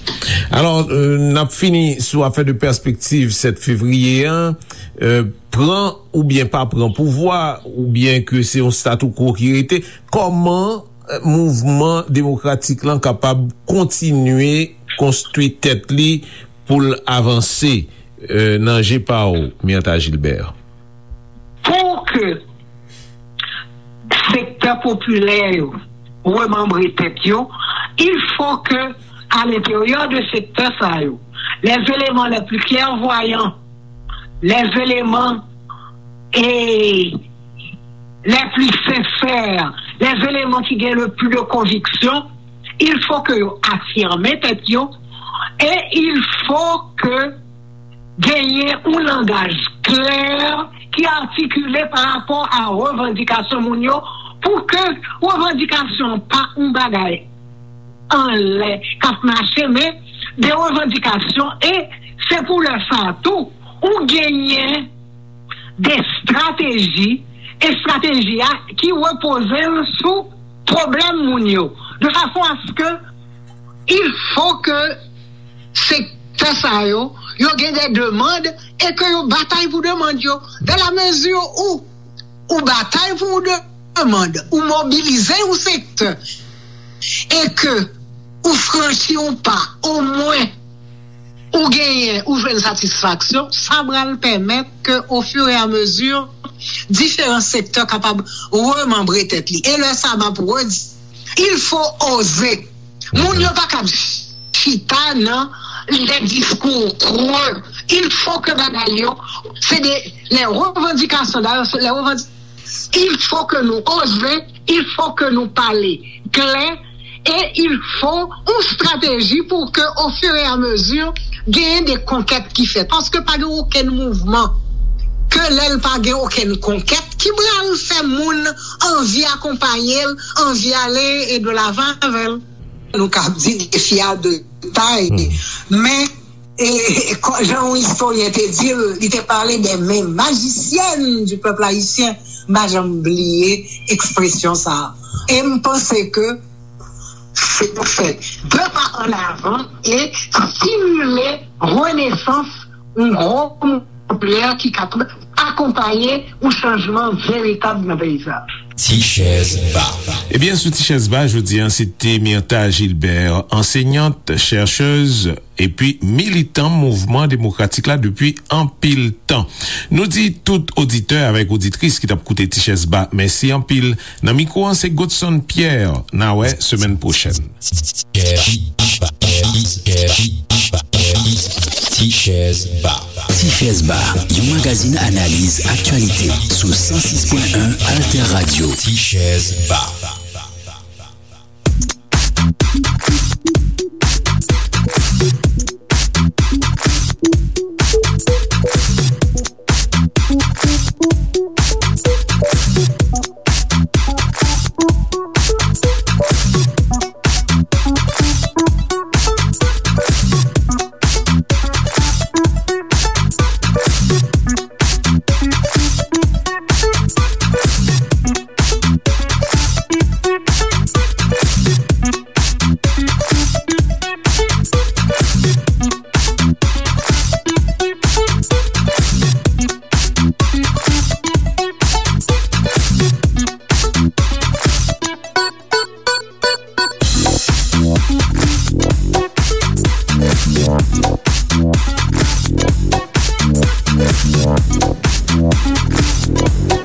Alò, euh, n ap fini sou afè de pèspektiv sèt fevriye an. Euh, pran oubyen pa pran pouvwa, oubyen ke se yon statu quo ki rete, kòman, euh, mouvman demokratik lan kapab kontinye konstwi tèt li pou l avanse, euh, nan je pa w, Myrtha Gilbert? Pou ke sektè popilè yo remanbre tèt yo, il faut que, à l'intérieur de sektè sa yo, les éléments les plus clairvoyants, les éléments, et les plus sincères, les éléments qui gagnent le plus de conviction, il faut que yo afirme tèt yo, et il faut que genyen yon langaj klè ki atikile pa rapò a revandikasyon moun yo, pou ke revandikasyon pa yon bagay anlè k ap mache, men de revandikasyon, e se pou lè sa a tou, ou genyen de estrateji, estrateji a ki repoze l sou pwoblèm moun yo, de fason aske il faut que sektè sa yo, yo gen de demann e ke yo batay pou demann yo. Dans la mesure où ou batay pou yon demann, ou mobilize yon sektè, e ke ou franchi yon pa, omwen ou genyen, ou jwenn satisfaksyon, sa pral pèmèt ke, au fur et à mesure, diferan sektè kapab remanbre tèt li. E lè sa, m ap redi, il faut oser. Moun yo pa kab chita nan les discours creux. Il faut que bagay yo, se de les revendications. D'ailleurs, c'est les revendications. Il faut que nou oze, il faut que nou pale klè, e il faut yon estrateji pou ke, au fur et à mesure, genyen de konkèt ki fèt. Paske pa gen okenn mouvman ke lè l pa gen okenn konkèt ki pral fè moun anvi akonpaye l, anvi ale e de lavan avè l. Nou ka di defi a de tay, men, e, e, kò- jan yon istoryen te di l, li te pale de men majisyèn du peuple haïtien. M pa janm bliye ekspresyon sa a. E m panse ke se pou fè de pa an avan e stimile renesans yon gwo mouvman popilè ki kapab akonpaye yon chanjman veritab nan peyi sa. Ti chèz ba. Ebyen, sou Ti chèz ba, jodi a, se te Myrtha Gilbert, ansenyant, chèchèz, epi militan mouvman demokratik la depi anpil tan. Nou di tout oditè avèk oditris ki t ap koute Ti chèz ba, mèsi anpil. Nan mikwo an, se Godson Pierre. N a wè semèn pwochèn. Ti chèz ba. Ti chèz ba, yon magazin analiz aktyalite sou san sis pwen en Alter Radio. Ti chèz ba.